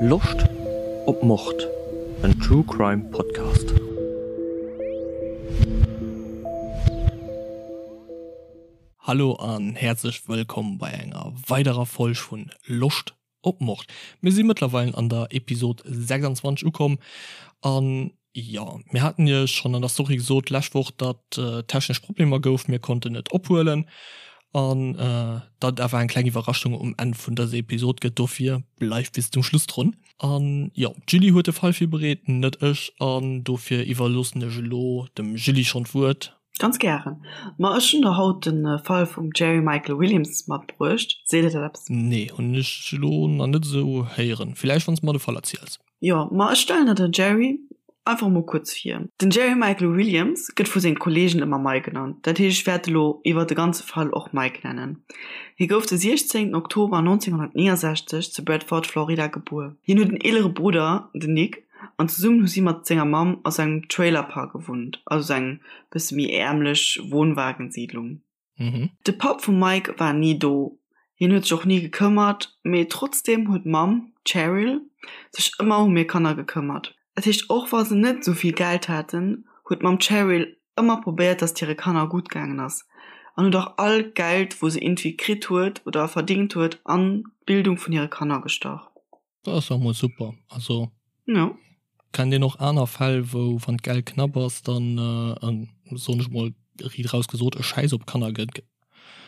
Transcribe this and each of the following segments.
Loscht op Mord? En True Crime Podcast. Hallo an häerzlech wëllkomm bei enger weiderer Folg vun Loscht op Mord. Mir si mëttlerweilen an der Episod 26 ukomm an jo, mir haten iech schonn an der Story gesot d'lescht Woch, datt technesch Problemer gouf, mir konnten net ophuelen an datt et awer eng kleng Iwwerraschung um Enn vun dëser Episod gëtt. Dofir bleift bis zum Schluss drun. An jo, d'Julie huet de Fall virbereet, net ech, an dofir iwwerloossen ech elo dem Julie schonn d'Wuert. Ganz gären. Ma ech hunn der haut de Fall vum Jerry Michael Williams matbruecht. Seet der dat eppes? Nee, hunn ech elo nach net esou héieren. Villäicht wann s de mer de Fall erziels. Jo, ma ech stellen der den Jerry einfach mol kuerz vir. Den Jerry Michael Williams gëtt vu senge Kolleegen ëmmer Mike genannt, dat heescht ech wäert elo iwwer de ganze Fall och Mike nennen. Hie gouf de 16 Oktober 1969 zu Bradford, Florida gebuer. Hien huet en eelere Brudder, den Nick, an zesummen hu si mat senger Mamm a sou engem Trailerpark gewunnt, also sou eng bësse méi äermlech Wohnwagensiedlung. De Papp vum Mike war ni do, hien huet sech och ni gekëmmert, mee trotzdeem huet d'Mamm, d'Cheryl, sech ëmmer um hir Kanner gekëmmert. Dat heescht, och wa se net sou vill Geld haten, huet d'Mamm Cheryl ëmmer probéiert, dass et hire Kanner gutt gaangen ass an huet och all Geld, wou se iergendwéi kritt huet oder verdingt huet, an d'Bildung vun hire Kanner gestach. Dat ass jo mol super. Also ja. Kennt een och aner Fäll, wou wann d'Geld knapp ass, dann äh, soen ech mol riit raus gesot, e Schäiss op Kanner gëtt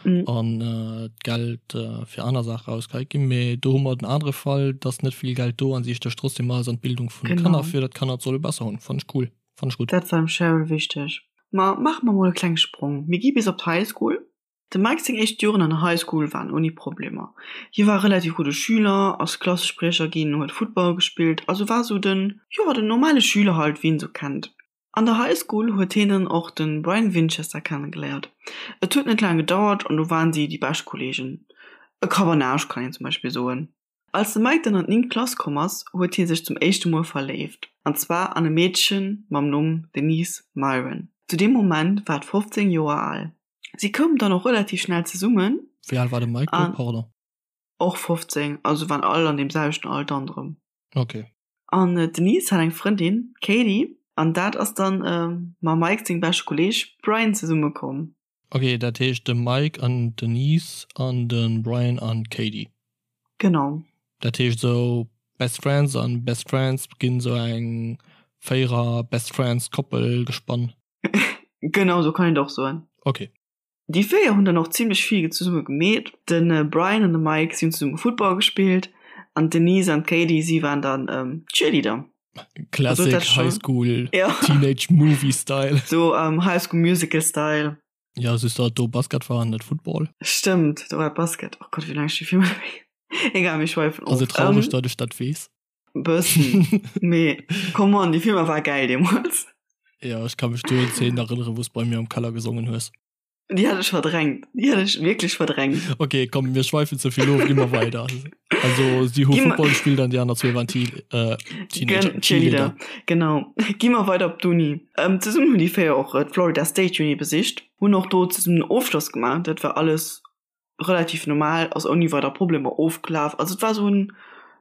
mm. an äh, d'Geld äh, fir aner Saache rausgeheit ginn. Mee do hu mer den anere Fall, dass net vill Geld do an si stécht trotzdem alles an d'Bildung vun de Kanner, fir dat d'Kanner et solle besser hunn. Fannt ech cool. Fannt ech gutt. Dat war dem Cheryl wichteg. Ma maache mer mol e klenge Sprong. Mir gi bis op d'High School. Dem Mike seng éischt Joren an der High School waren ouni Problemer. Hie war e relativ gudde Schüler, ass Klassespriecher ginn, huet Football gespillt, also war sou den, jo, den normale Schüler halt, wéi een sou kennt. An der High School huet hien dann och de Brian Winchester kennegeléiert. Et huet net laang gedauert an du waren si déi bescht Kolleegen. E Kabanage kann een zum Beispill soen. Als de Mike dann an d'néngt Klass komm ass, huet hie sech zum éischte Mol verléift, an zwar an e Meedche mam Numm Denise Myron. Zu deem Moment war et 15 Joer al. Si koumen dann och relativ schnell zesummen. Wéi al war de Mike do, pardon? Och 15, also waren all an deem selwechten Alter an drëm. Ok. An d'Denise hat eng Frëndin, d'Katie, an dat ass dann mam Mike sengem beschte Kolleeg Brian zesummekomm. Ok, dat heescht de Mike an d'Denise an de Brian an d'Katie. Genau. Dat heescht esou Best Friends an Best Friends ginn esou eng Véierer Best Friends Koppel gespann. Genau sou kann een et och soen. Ok. Déi 4 hunn dann och zimlech vill zesumme gemeet. De Brian an de Mike si hunn zesumme Football gespillt an d'Denise an d'Katie si waren dann Cheerleader. Classic High School Teenage Movie Style. Sou High School Musical Style. Ja just datt do Basket war an net Football. Stëmmt, do war Basket. Oh Gott, wéi laang ech déi Filmer net méi. Egal, mir schweifen of. Ass et traureg, datt ech dat weess? Bëssen, mee come on, déi Filmer war gäil deemols. Jo, ech ka mech do un Zeenen erënneren, wou s bei mir am Keller gesongen hues. Déi hat ech verdrängt, déi hat ech wierklech verdrängt. Ok, komm, mir schweifen ze vill of, gi mer weider. Also si hu Football gespillt an déi aner zwee waren Teenager, Cheerleader. Genau, gi mer weider op d'Uni. Zesummen hunn déi 4 och d'Florida State Uni besicht, hunn och do zesummen den Ofschloss gemaach. Dat war alles relativ normal, ass ouni weider Problemer ofgelaf. Also et war esou en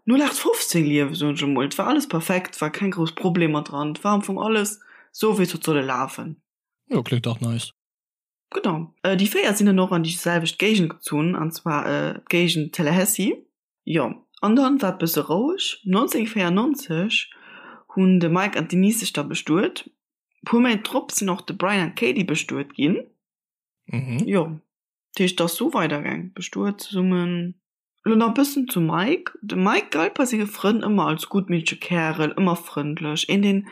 0815 Liewen, soen ech emol. Et war alles perfekt, et war keng grouss Problemer dran, et war am Fong alles esou wéi et huet solle lafen. Jo, kléngt dach nice. Genau. Déi 4 sinn dann och an déi selwecht Géigend gezunn, an zwar d'Géigend Tallahassee. Jo, an dann war et bësse roueg. 1994 hunn de Mike an d'Denise sech da bestuet. Puer Méint drop sinn och de Brian an d'Katie bestuet ginn. Jo. Dat heescht, et ass sou weidergaang, bestuet zesummen. Elo nach e bëssen zum Mike. De Mike galt bei senge Frënn ëmmer als guttmittege Kärel, ëmmer frëndlech, een deen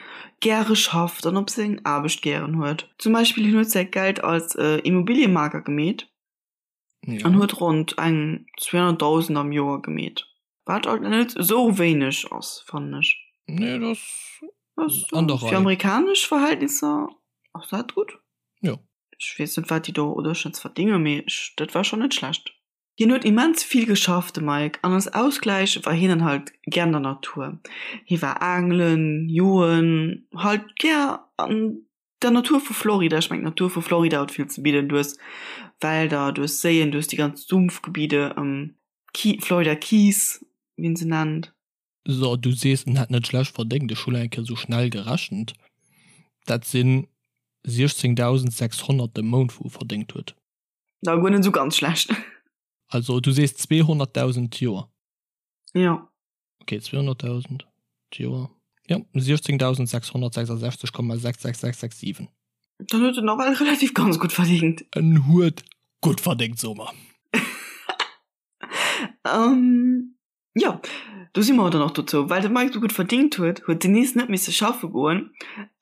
gäre schafft an op seng Aarbecht gären huet. Zum Beispill hien huet säi Geld als Immobiliemaker gemeet an huet ronnt eng 200.000 am Joer gemeet, wat alt net esou wéineg ass, fannen ech. Nee, dat ass an der Rei. Fir amerikanesch Verhältnisser ass dat gutt. Jo. Ech weess net wat déi do oder schonns verdéngen, mee ech, dat war schonn net schlecht. Hien huet immens vill geschafft, de Mike, an als Ausgläich war hien dann halt gär an der Natur. Hie war aangelen, joen, halt gär an der Natur vu Florida. Ech mengen d'Natur vu Florida huet vill ze bidden, du hues Wälder, du hues Séien, du hues déi ganz Sumpfgebiede, Florida Keys, wéi een se nennt. So, du sees en hätt net schlecht verdéngt, ech hu lo eng Kéier sou schnell gerechent, dat sinn 16.600 de Mount wou e verdéngt huet. Da guer net sou ganz schlecht. Also du sees 200.000 d'Joer? Jo. Ok, 200.000 d'Joer, jo, 16.666,66667. Dann huet en nawell relativ ganz gutt verdéngt. En huet gutt verdéngt, soe mer. Jo, do si mer dann och dozou. Well de Mike sou gutt verdingt huet, huet d'Denise net misse schaffe goen.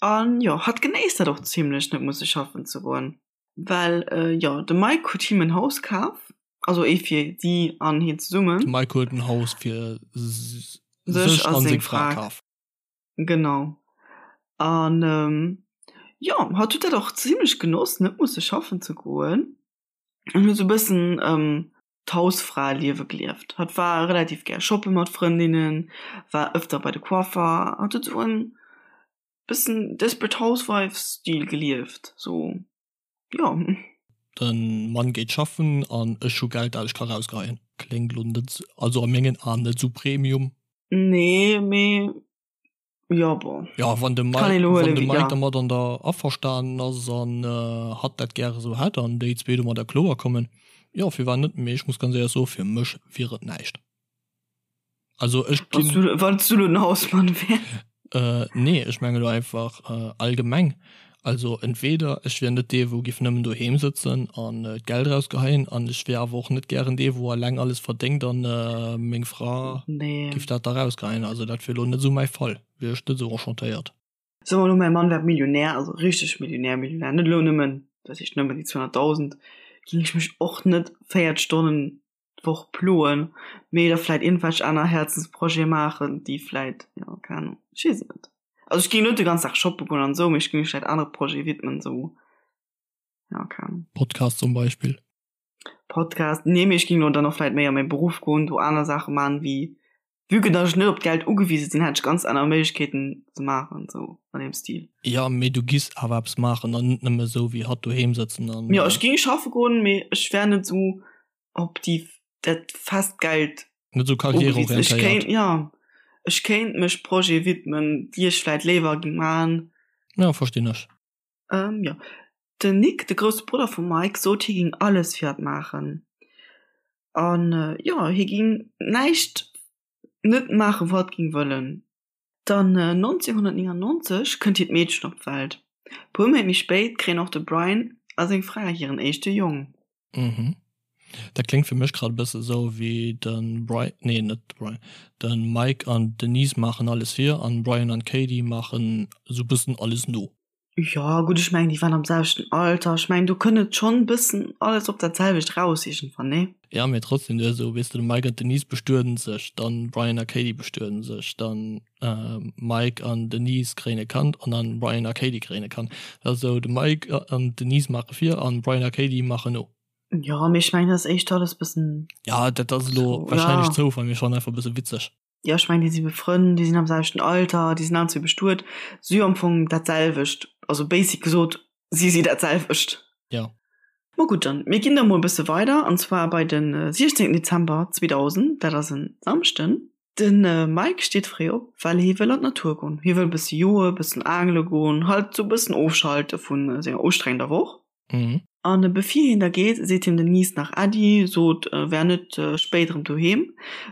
An jo, hatt genéisst dat och zimlech, net musse schaffen ze goen. Well jo, de Mike huet him en Haus kaf, also ee fir si an hien zesummen. De Mike huet en Haus fir sech a seng Fra kaf. Genau. An jo, hatt huet dat och zimlech genoss, net musse schaffen ze goen. An huet sou e bëssen d'Hausfraeliewe gelieft. Hatt war relativ gär shoppe mat Frëndinnen, war ëfter bei de Coiffer. Hatt huet sou en bëssen Desperate Housewives-Stil gelieft, sou, jo. De Mann geet schaffen an ech hu Geld dat ech ka rausgeheien. Kléngt lo net, also a mengen Aen net sou Premium. Nee, mee jo, bon. Jo, wann de Mike, wann de Mike dermat an der averstanen ass an hatt dat gäre sou hätt an déi zwee domadder kloer kommen, jo, firwat net? Mee ech muss ganz éierlech soen, fir mech wier et näischt. Also ech ginn. Wann s du lo den Hausmann wäers. Äh, nee, ech menge lo einfach allgemeng. Also entweder ech wier net dee wou giff nëmmen doheem sëtzen an d'Geld erausgeheien an ech wier awer och net gären dee wou alleng alles verdéngt an meng Fra giff dat da rausgeheien. Also dat wier lo net esou mäi Fall, wier ech net esou enchantéiert. Soe mer lo mäi Mann wär Millionär, also richteg Millionär Millionär, net elo nëmmen, dat heescht nëmmen déi 200.000, géing ech mech och net 4 Stonnen d'Woch ploen, mee da vläit iergendwelch aner Häerzensprojete maachen, déi vläit, jo, keng Ahnung, ech weess et net. Also ech géing net de ganzen Dag shoppe goen an esou, mee ech géing mech vläit anere Projete widmen, esou, jo, keng Ahnung. Podcast zum Beispill. Podcast, nee, mee ech géing lo dann och vläit méi a mäi Beruff goen, do aner Saache maachen, wéi, vue que datt ech net op d'Geld ugewise sinn, hätt ech ganz aner Méiglechkeeten ze maachen, esou an deem Stil. Jo, mee du giss awer eppes maachen an net nëmme esou wéi hatt doheem sëtzen an. Jo, ech géing schaffe goen, mee ech wär net esou op déi dat fest Geld net sou karriereorientéiert. Ja ech kéint mech Projete widmen, déi ech vläit léiwer géing maachen. Ja verstinn ech. Ähm jo den Nick, de grousse Brudder vum Mike, sot hie géing alles fir hatt maachen an jo hie géing näischt net maachen wou hatt géing wëllen. Dann 1999 kënnt hiert Meedchen op d'Welt. Puer Méint méi spéit kréien och de Brian a seng Fra hiren éischte Jong. Mhm. Dat kléngt fir mech grad e bësse sou wéi de Bri, nee net de Brian, de Mike an d'Denise maachen alles vir an Brian an d'Katie maachen sou bëssen alles no. Jo gutt, ech mengen déi waren am selwechten Alter, ech mengen do kënnt et schonn bëssen alles op dat selwecht raus iergendwann, nee? Ja mee trotzdem, du hues esou, weess de, de Mike an d'Denise bestueden sech, dann Brian a Katie bestueden sech, dann Mike an Denise kréien e Kand an dann Brian a Katie kréien e Kand. Dat ass esou, de Mike an d'Denise maache vir an Brian a Katie maachen no. Jo mee ech mengen dat ass éischter alles bëssen. Ja dat ass elo wahrscheinlech Zoufall, mee schonn einfach e bësse witzeg. Jo, ech mengen, déi si befrënnt, déi sinn am selwechten Alter, déi sinn allen zwee bestuet, si hu am Fong dat selwecht, also basic gesot, si si dat selwecht. Jo. Ma gutt, dann, mir ginn da mol e bësse weider, an zwar bei de 16 Dezember 2000, dat ass en Samschden. De Mike steet fréi op, well hie wëll an d'Natur goen. Hie wëll e bësse joe, e bëssen aangele goen, halt sou e bëssen ofschalte vu senger ustrengender Woch. Mhm. An bevir hien da geet, seet him den Niece nach Äddi, sot e wär net spéit erëm doheem,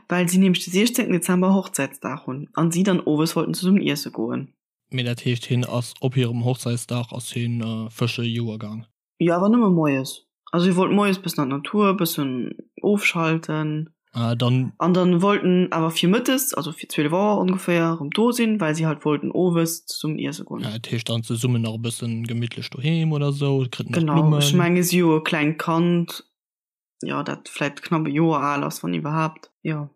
well si nämlech de 16 Dezember Hochzäitsdag hunn an si dann owes wollten zesummen iesse goen. Mee dat heescht, hien ass op hirem Hochzäitsdag ass hien fësche joe gaang? Jo, awer nëmme moies. Also hie wollt moies bëssen an d'Natur, bëssen ofschalten. Ah, dann. An dann wollt en awer fir mëttes, also fir 12 Auer ongeféier, erëm do sinn, well si halt wollten owes zesummen iesse goen. Ah, dat heescht dann zesummen nach e bëssen gemittlech doheem oder sou, kritt nach Genau, ech Blummen. menge si hu e klengt Kand, jo, dat vläit knapp e Joer al ass, wann iwwerhaapt, jo.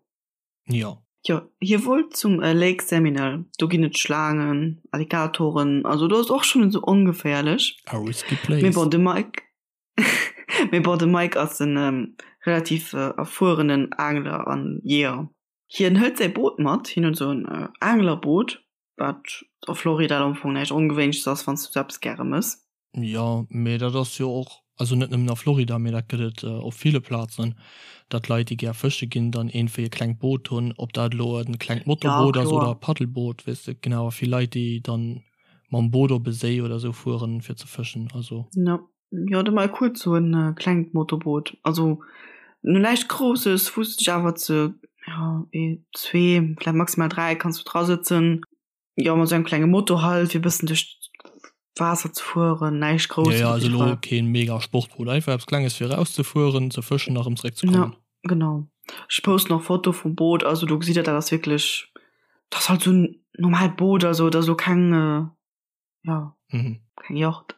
Jo. Jo, hie wollt zum Lake Seminole, do ginn et Schlaangen, Alligatoren, also do ass och schonn net sou ongeféierlech. A risky place. Mee bon, de Mike. Mee bon, de Mike ass en relativ erfuerenen Aangler an Jeeër. Hien hëlt säi Boot mat, hien huet esou en Aanglerboot, wat a Florida am Fong näischt Ongewéinleches ass, wann s du sou eppes gäre mëss. Jo, mee dat ass jo och. Also net nëmmen a Florida, mee dat gëtt et op ville Plazen, datt Leit, déi gär fësche ginn, dann iergendwéi e klengt Boot hunn, ob dat elo e klengt Motorboot ass oder e Paddelboot, weess de. Genau, a vill Leit, déi dann mam Boot op e Séi oder esou fueren, fir ze fëschen. Also. Jo, jo, de Mike huet sou e klengt Motorboot. Also no näischt Grousses, wou s de dech awer ze, jo, ee, zwee, vläicht maximal 3 kanns du drasëtzen. Jo, mat sou engem klenge Motor halt, fir e bëssen duerch d'Waasser ze fueren, näischt Grousses. Ja, ja, also elo keen mega Sportboot, einfach eppes Klenges fir erauszefueren, ze fëschen a rëm zeréck ze kommen. Ja, genau. Ech posten och Foto vum Boot, also do gesitt der, dat ass wierklech, dat ass halt sou en normaalt Boot, also dat ass elo keng, ja, keng Yacht.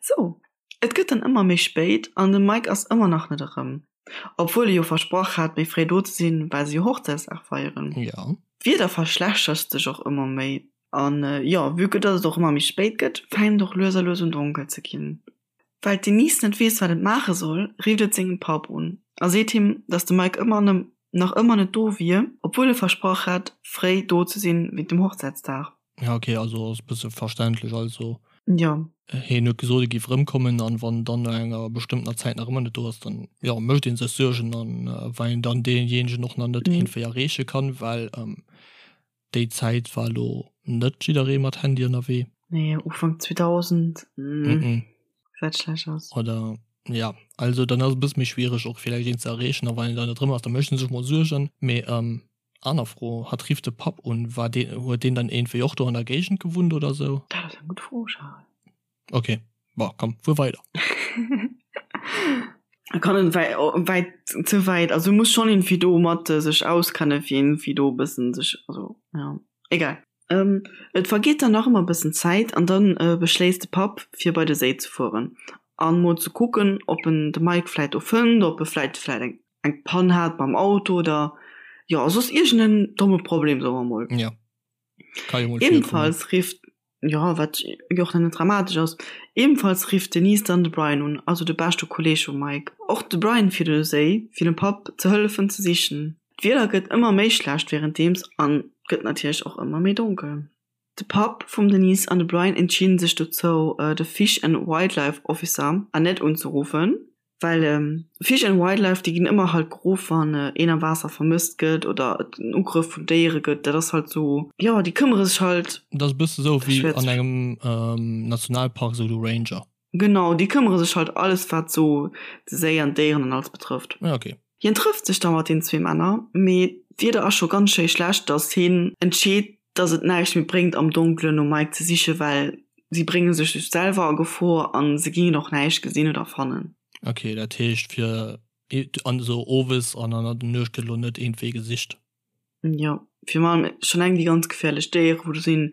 Sou, et gëtt dann ëmmer méi spéit an de Mike ass ëmmer nach net erëm. Obwuel e jo versprach hat, méi fréi do ze sinn, well se jo Hochzäitsdag feieren. Ja. D'Wieder verschlechtert sech och ëmmer méi an jo, vue que dass et och ëmmer méi spéit gëtt, fänkt et och lues a lues un donkel ze ginn. Well d'Denise net weess, wat et maache soll, rifft et sengem Papp un a seet him, dass de Mike ëmmer nach ëmmer net do wier, obwuel e versprach hat, fréi do ze sinn wéint dem Hochzäitsdag. Ja okay, also ass e bësse verständlech. Also Jo. hien huet gesot, e géif erëmkommen an wann dann no enger bestëmmtener Zäit nach ëmmer net do ass, dann jo mécht ee sech Suergen an well een dann deejéinegen och nach net iergendwéi erreeche kann, well déi Zäit war elo net jidderee mat Handy ënnerwee. Nee, Ufank 2000 gesäit schlecht aus. Oder ja, also dann ass et e bësse méi schwiereg och villäicht een ze erreechen a wann een dann net erëm ass, da mécht ee sech mol Suergen. Mee Aner Fro, Hatt rifft de Papp un, war deen, huet deen dann iergendwéi och do an der Géigend gewunnt oder sou? Dat ass eng gutt Fro, Charel. Ok, bon, komm, fuer weider. Kann en wäit, ze wäit, also muss schonn iergendwéi do mat sech auskennen, fir iergendwéi do e bëssen sech, also jo, egal. Et vergeet dann nach ëmmer e bëssen Zäit an dann beschléisst de Papp fir bei de Séi ze fueren an mol ze kucken, ob en de Mike vläit do fënnt, ob e vläit vläit eng. eng Pann hat mam Auto oder jo soss iergend en domme Problem soe mer mol. Ja. Ka jo mol virkommen. Ebenfalls rifft, jo wat jo och net dramatesch ass, ebenfalls rifft d'Denise dann de Brian un, also de beschte Kolleeg vum Mike. Och de Brian fiert un de Séi fir dem Papp ze hëllefen ze sichen. D'Wieder gëtt ëmmer méi schlecht wärenddeems an gëtt natierlech och ëmmer méi donkel. De Papp vum Denise an de Brian entscheeden sech dozou de Fish and Wildlife Officer Annette unzeruffen, Well Fish and Wildlife, déi ginn ëmmer halt geruff, wann een am Waasser vermësst gëtt oder et en Ugrëff vun Déiere gëtt. Dat ass halt sou, jo, déi këmmere sech halt. Dat ass e bësse sou wéi an engem Nationalpark, sou de Ranger. Genau, déi këmmere sech halt alles, wat sou de Séi an d'Déieren an alles betrëfft. Ja, okay. Hien trëfft sech da mat den zwee Männer, mee d'Wieder ass scho ganz schéi schlecht, datt hien entscheet, datt et näischt méi bréngt am Donkelen nom Mike ze sichen, well si brénge sech just selwer a Gefor a se gingen och näischt gesinn oder fannen. Ok, dat heescht fir an esou owes an an der Nuecht gëtt elo net iergendwéi gesicht? Jo, virun allem schonn eng déi ganz geféierlech Déiere wou do sinn,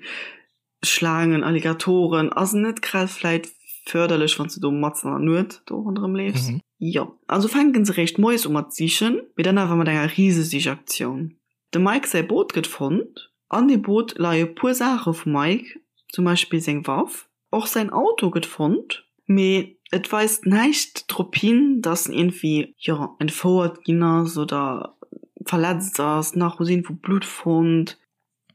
Schlaangen, Alligatoren, ass net grad vläit förderlech wann s de do matzen an der Nuet do ronderëm leefs. Jo, also fänken se réischt moies u mat sichen, mee dann awer mat enger Risesichaktioun. Dem Mike säi Boot gëtt fonnt. An deem Boot leie puer Saache vum Mike, zum Beispill seng Waff. Och säin Auto gëtt fonnt, mee et weist näischt drop hin, dass en iergendwéi, jo, entfouert ginn ass oder verletzt ass. Nach hu si iergendwou Blutt fonnt.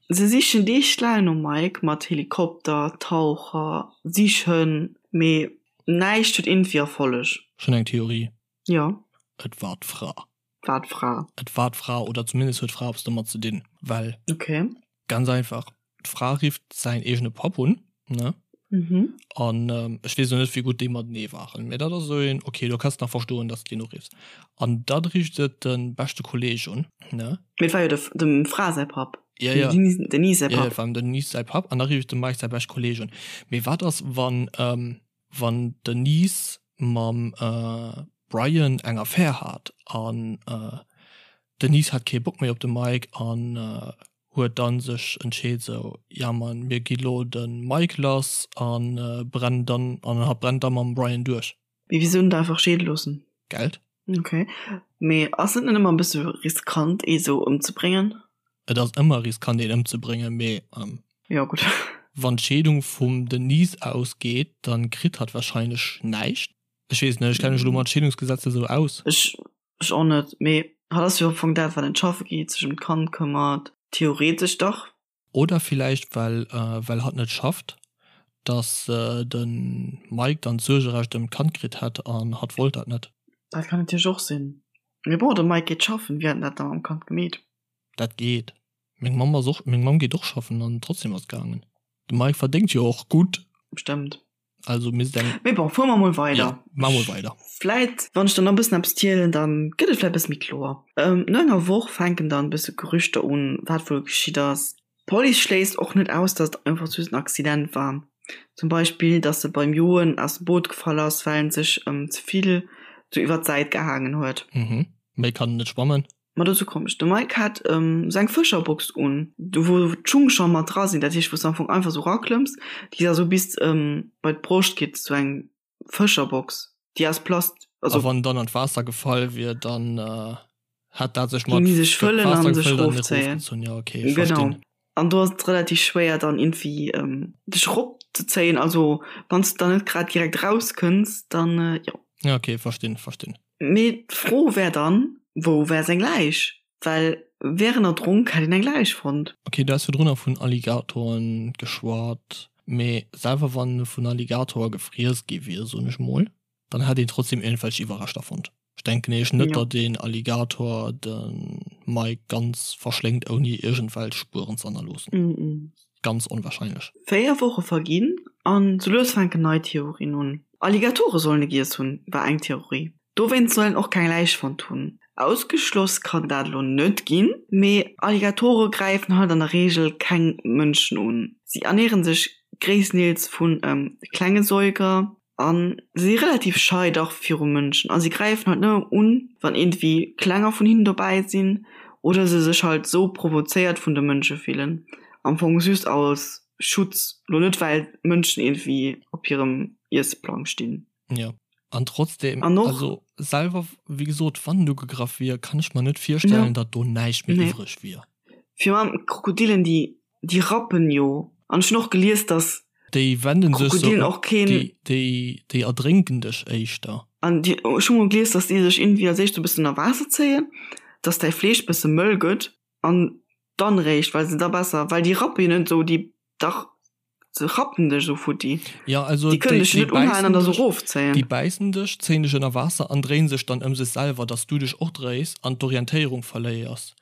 Se sichen Deeg laang nom Mike, mat Helikopter, Taucher, Sichhënn, mee näischt huet iergendwéi Erfolleg. Ech hunn eng Theorie. Jo. Et war d'Fra. War d'Fra. Et war d'Fra, oder zumindest huet d'Fra eppes domat ze dinn, well. Okay. Ganz einfach, d'Fra rifft säin eegene Papp un, ne? Mhm. An ech weess elo net, wéi gutt déi matenee waren, mä dat ass esou een, okay, do kanns de nach verstoen, dass de deen uriffs. An da rifft se de beschte Kolleeg un, ne? Mee et war jo de, dem Fra säi Papp. Ja, ja. Dem Denise säi Papp. Ja, et war dem Denise säi Papp. An da rifft de Mike säi beschte Kolleeg un. Mee wat ass, wann, wann d'Denise mam Brian eng Affär hat an d'Denise hat kee Bock méi op de Mike an huet dann sech entscheet sou, ja man mir gi lo de Mike lass an brennen dann an hatt brennt da mam Brian duerch. Mee wisou net einfach scheede loossen? Geld. Ok, mee ass et net ëmmer e bësse riskant ee sou ëmzebréngen? Et ass ëmmer riskant een ëmzebréngen, mee Jo gutt. Wann d'Scheedung vum Denise ausgeet, dann kritt hatt wahrscheinlech näischt. Ech weess net, ech kenne mech elo mat Scheedungsgesetzer sou aus. Ech ech och net, mee hatt ass jo am Fong dat wat net schaffe geet, sech ëm d'Kand këmmert, theoretesch dach. Oder villäicht well well hatt net schafft. Dass de Mike dann d'Suergerecht ëm d'Kand kritt hätt an hatt wollt dat net. Dat kann natierlech och sinn. Mee bon, de Mike geet schaffen, wéi hätt en dat da mam Kand gemeet? Dat geet. Meng Mamm ass och, meng Mamm geet och schaffen an trotzdem ass et gaangen. De Mike verdéngt jo och gutt. Stëmmt. Also misst eng. Mee bon, fuere mer mol weider. Jo, maache mol weider. Vläit, wann ech dann nach e bëssen eppes zielen, dann gëtt et vläit e bësse méi kloer. No enger Woch fänken dann e bësse Gerüchter un, wat wuel geschitt ass. D'Police schléisst och net aus, datt et einfach just en Accident war. Zum Beispill, datt e beim Joen aus dem Boot gefall ass, well en sech ze vill sou iwwer d'Säit gehaangen huet. Mhm. Méi kann en net schwammen. Ma dozou komm ech. De Mike hat sou eng Fëscherbox un, do wou d'Schung scho mat dra sinn, dat heescht wou s de am Fong einfach sou raklëmms, déi da sou bis bei d'Broscht geet, sou eng Fëscherbox, déi aus Plast, also. A wann dann an d'Waasser gefall wier, dann hätt dat sech mat sech fëllen an sech erofzéien. Ja, okay, ech verstinn. Genau. An do ass et relativ schwéier dann irgendwie dech eropzezéien, also wann s de dann net grad direkt erauskënns, dann jo. Ja, okay, verstinn, verstinn. Mee d'Fro wär dann, wou wär seng Läich? Well wär en erdronk, hätt een eng Läich fonnt. Ok, du has virdrunner vun Alligatoren geschwat, mee selwer wann e vun Alligatorer gefriess gi wier, soen ech mol, dann hätt een trotzdem iergendwelch Iwwerreschter fonnt. Ech denken nämlech net, datt een Alligator de Mike ganz verschléngt ouni iergendwelch Spueren ze hannerloossen. Ganz onwahrscheinlech. 4 Woche verginn an sou lues fänken nei Theorien un. Alligatore sollen e giess hunn, war eng Theorie. Dowéinst soll en och keng Läich fonnt hunn. Ausgeschloss kann dat elo net ginn, mee Alligatore gräifen halt an der Reegel keng Mënschen un. Si ernären sech gréisstendeels vu klenge Säuger a si relativ schei dach viru Mënschen a si gräifen halt nëmme un, wann iergendwéi Klenger vun hinnen dobäi sinn oder se sech halt sou provozéiert vun de Mënsche fillen. Am Fong just als Schutz, lo net well d'Mënschen iergendwéi op hirem Iessplang stinn. Jo, an trotzdem, an och, also selwer, wéi gesot, wann en ugegraff wier, kann ech mer net virstellen, datt do näischt méi iwwreg wier. Virun allem Krokodilen, déi Déi rappen jo. An ech hunn och gelies, dass Déi wenden sech Krokodilen och keen. Déi, déi, déi erdrénken dech éischter. An déi, ech hu mol gelies, dass déi sech iergendwéi als éischt e bëssen ënner Waasser zéien, dass däi Fleesch bësse mëll gëtt an dann eréischt, well se da besser, well déi rappe jo net esou, déi, dach, se rappen dech esou futti. Ja, also Déi kënnen dech jo net unhalen an da sou erofzéien. Déi bäissen dech, zéien dech ënner Waasser an dréien sech dann ëm sech selwer, dass du dech och dréis an d'Orientéierung verléiers.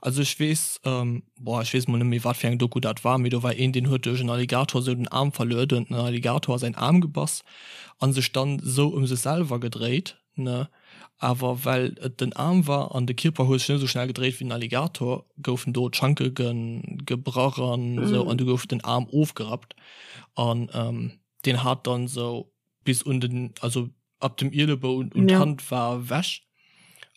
Also ech weess, boah, ech weess mol net méi wat fir eng Doku dat war, mee do war een, deen huet duerch en Alligator sou den Aarm verluer, do huet den Alligator a säin Aarm gebass an sech dann sou ëm sech selwer gedréit, ne, awer well et den Aarm war an de Kierper huet sech net sou schnell gedréit wéi den Alligator, goufen do d'Schanke gebrach an sou an du gouf den Aarm ofgerappt an deen hat dann sou bis un den, also ab dem Ielebou un d'Hand war ewech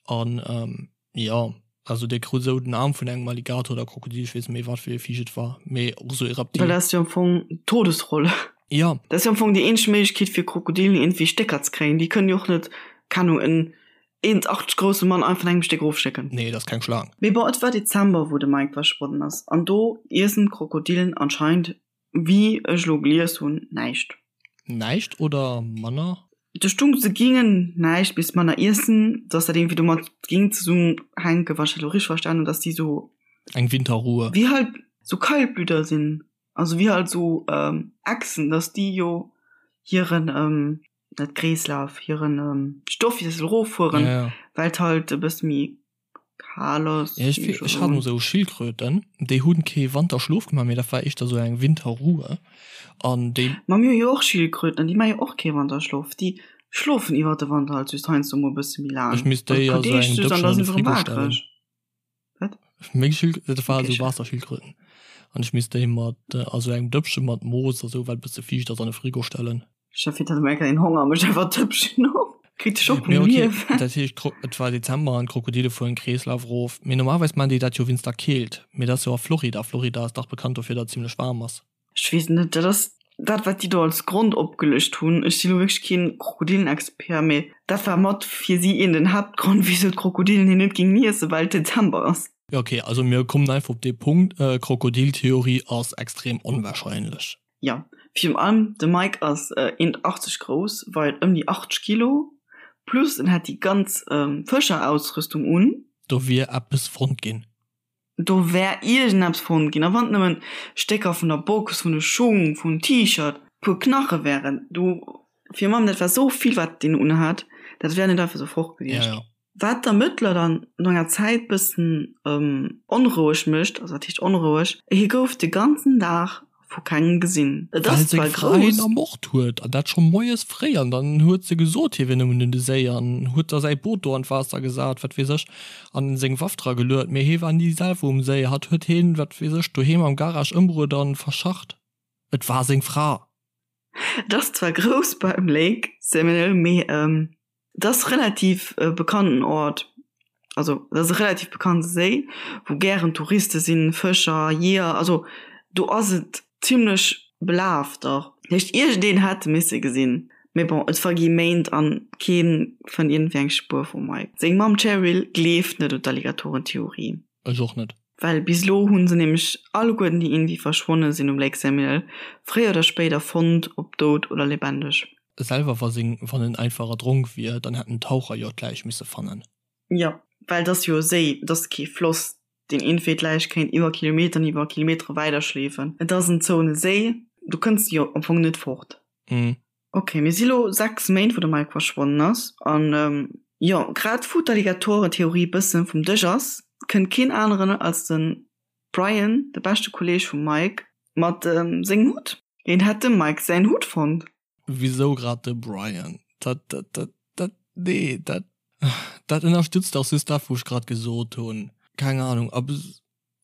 an Jo, also dee krut esou den Aarm vun engem Alligator oder Krokodil, ech weess net méi wat fir ee Viech et war, mee och esou ee Reptil. Well dat ass jo am Fong d'Todesroll. Jo. Dat ass jo am Fong déi eenzeg Méiglechkeet fir Krokodilen iergendwéi Stécker ze kréien. Déi kënnen jo och net, keng Ahnung, en 1,80 grousse Mann einfach an engem Stéck erofschlécken. Nee, dat ass keng Schlaang. Mee bon, et war Dezember wou de Mike verschwonnen ass an do iessen d'Krokodilen anscheinend Wéi ech elo gelies hunn, näischt. Näischt oder manner? Do stung, se gingen näischt bis manner iessen, dass dat iergendwéi domat ging zesummenhänken, wann ech dat elo richteg verstanen hunn, dass déi sou. Eng Winterruhe. Wéi halt sou Kaltblüter sinn, also wéi halt sou Echsen, dass déi jo hiren, net Kreeslaf, hiren Stoffwiessel eroffueren, well et halt e bësse méi Kal ass. Ja, ech, ech hat mol sou Schildkröten, déi hunn kee Wanterschlof gemaach, mee dat war éischter sou eng Winterruhe an déi. Ma mir hu jo och Schildkröten an déi maache jo och kee Wanterschlof. Déi schlofen iwwer de Wanter halt just heiansdo mol e bësse méi laang. Ech misst déi a sou engem Dëppchen an de Frigo stellen. Wat? Meng Schild, dat war sou Waasserschildkröten an ech misst déi mat a sou engem Dëppche mat Moos a sou, wat e bësse fiicht ass, an de Frigo stellen. Chef hat eng een Honger mech einfach Tëppchen op. Kritt de Schock vum Liewen. Dat heescht et war Dezember an d'Krokodile fueren Kreeslaf erof. Mee normalerweis maachen déi dat jo wéinst der Keelt. Mee dat ass jo a Florida. Florida ass dach bekannt dofir, datt et zimlech waarm ass. Ech weess net, dat ass dat wat déi do als Grond opgelëscht hunn. Ech si lo wierklech keen Krokodillenexpert, mee dat war mat fir si een den Haaptgrond wisou d'Krokodilen hien net géingen iessen, well et Dezember ass. Jo ok, also mir kommen einfach op dee Punkt, Krokodiltheorie ass extrem onwahrscheinlech. Jo, virun allem de Mike ass 1,80 grouss, weit ëm déi 80 Kilo, plus en hat déi ganz Fëscherausrüstung un. Do wier eppes fonnt ginn. Do wär iergendeppes fonnt ginn, a wann et nëmmen Stécker vun der Box, vun de Schung, vum T-Shirt. Puer Knache wären do fir Mamm, dat war sou vill wat deen unhat, dat wär net einfach sou fort gewiescht. Ja, ja. Wat d'Ermëttler dann no enger Zäit bëssen onroueg mécht, also wat heescht onroueg, hie gouf de ganzen Dag vu kengem gesinn. Et Well ass seng zwar Fra hien grouss. ermort huet, an dat scho moies fréi, an dann huet se gesot, hie wier nëmmen un de Séi an huet da säi Boot do an d'Waasser gesat, wat weess ech, an seng Waff dra geluet, mee hie war ni selwer um Séi, hatt huet hien, wat weess ech, doheem am Garage ëmbruet an verscharrt. Et war seng Fra. Et ass zwar grouss beim Lake Seminole, mee et ass relativ e bekannten Ort, also et ass e relativ bekannte Séi, wou gären Touriste sinn, Fëscher, Jeeër, also do ass et zimlech belaf dach. Dat heescht iergendeen hätt e misse gesinn. Mee bon, et vergi Méint an kee fënnt iergendwéi eng Spuer vum Mike. Seng Mamm Cheryl gleeft net un d'Alligatoren-Theorie. Ech och net. Well bis elo hu se nämlech alleguerten, déi iergendwéi verschwonne sinn um Lake Seminole, fréier oder spéider fonnt, ob dout oder lebendeg. Selwer wa seng, wann en einfach erdronk wier, dann hätten d'Taucher jo d'Läich misse fannen. Jo, well et ass jo e Séi, et ass kee Floss, deen iergendwéi d'Läich kéint iwwer Kilometeren, iwwer Kilometere weiderschleefen. Et ass en zouene Séi, do kënns de jo am Fong net fort. Ok, mir si lo 6 Méint wou de Mike verschwonnen ass an jo, grad wou d'Alligatoren-Theorie bëssen vum Dësch ass, kënnt keen aneren als de Brian, de beschte Kolleg vum Mike, mat sengem Hutt. Hien hätt dem Mike säin Hutt fonnt. Wisou grad de Brian? Dat, dat, dat, dat, nee, dat, dat ënnerstützt dach just dat wou ech grad gesot hunn. Keng Ahnung, a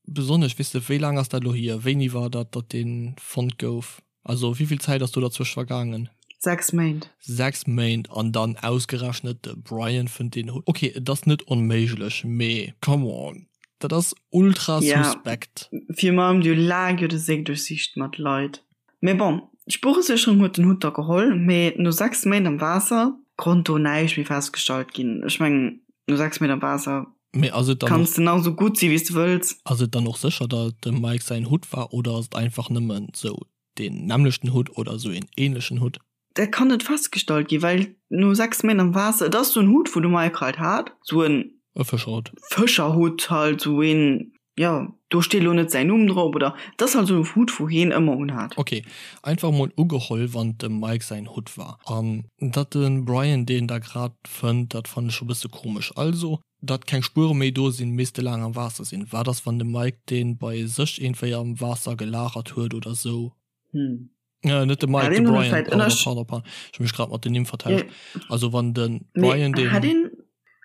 Besonnesch, weess de, wéi laang ass dat elo hier? Wéini war dat, datt dee fonnt gouf? Also wéi vill Zäit ass do derzwëscht vergaangen? 6 Méint. 6 Méint an dann ausgerechnet de Brian fënnt deen Hutt. Ok, et ass net onméiglech, mee come on, dat ass ultra suspekt. Ja, virun allem déi hu laang jo de Séi duerchsicht mat Leit. Mee bon, d'Spueresécherung huet den Hutt da geholl, mee no 6 Méint am Waasser konnt do näischt méi festgestallt ginn. Ech mengen, no 6 Méint am Waasser Mee ass et dann och. Kanns de nach esou gutt si wéi s de wëlls. Ass et dann och sécher, datt et dem Mike säin Hutt war oder ass et einfach nëmmen sou deen nämmlechten Hutt oder sou een ähnlechen Hutt? Dat kann net festgestallt ginn, well no 6 Méint am Waasser, et ass sou en Hutt wou de Mike halt hat, sou en. E Fëscherhutt. Fëscherhutt halt, sou een, jo, do steet elo net säin Numm drop oder et ass halt sou e Hutt wou heen ëmmer unhat. Ok, einfach mol ugeholl, wann et dem Mike säin Hutt war an datt de Brian deen da grad fënnt, dat fannen ech scho bësse komesch. Also datt keng Spuere méi do sinn, misst e laang am Waasser sinn. Wat ass wann de Mike deen bei sech iergendwéi am Waasser gelagert huet oder sou? Hm. Äh, net de Mike, de Brian, pardon, pardon, pardon. Ech hu mech grad mat den Nimm vertauscht. Also wann de Brian deen. Hat een,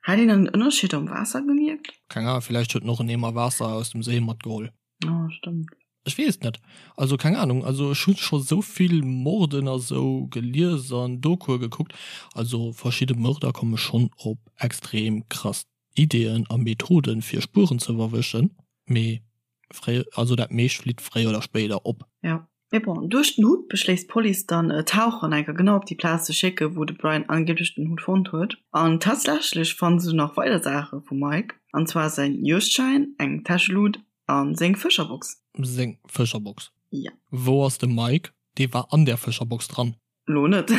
hat een en Ënnerscheed am Waasser gemierkt? Keng Ahnung, villäicht huet en och en Eemer Waasser aus dem Séi matgeholl. Oh, stëmmt. Ech weess et net. Also keng Ahnung, also ech hu scho sou vill Morden a sou gelies an Dokue gekuckt. Also verschidde Mörder komme schonn op extrem krass Ideeën a Methoden fir Spueren ze verwëschen, mee fréi, also dat meescht flitt fréier oder spéider op. Jo, mee bon, duerch den Hutt beschléisst d'Police dann Taucher an enker genau op déi Plaz ze schécken, wou de Brian angeeblech den Hutt fonnt huet. An tatsächlech fanne se nach weider Saache vum Mike, an zwar säin Juegdschäin, eng Täschelut a seng Fëscherbox. Seng Fëscherbox? Jo. Wou ass de Mike? Dee war an där Fëscherbox dran. Lo net.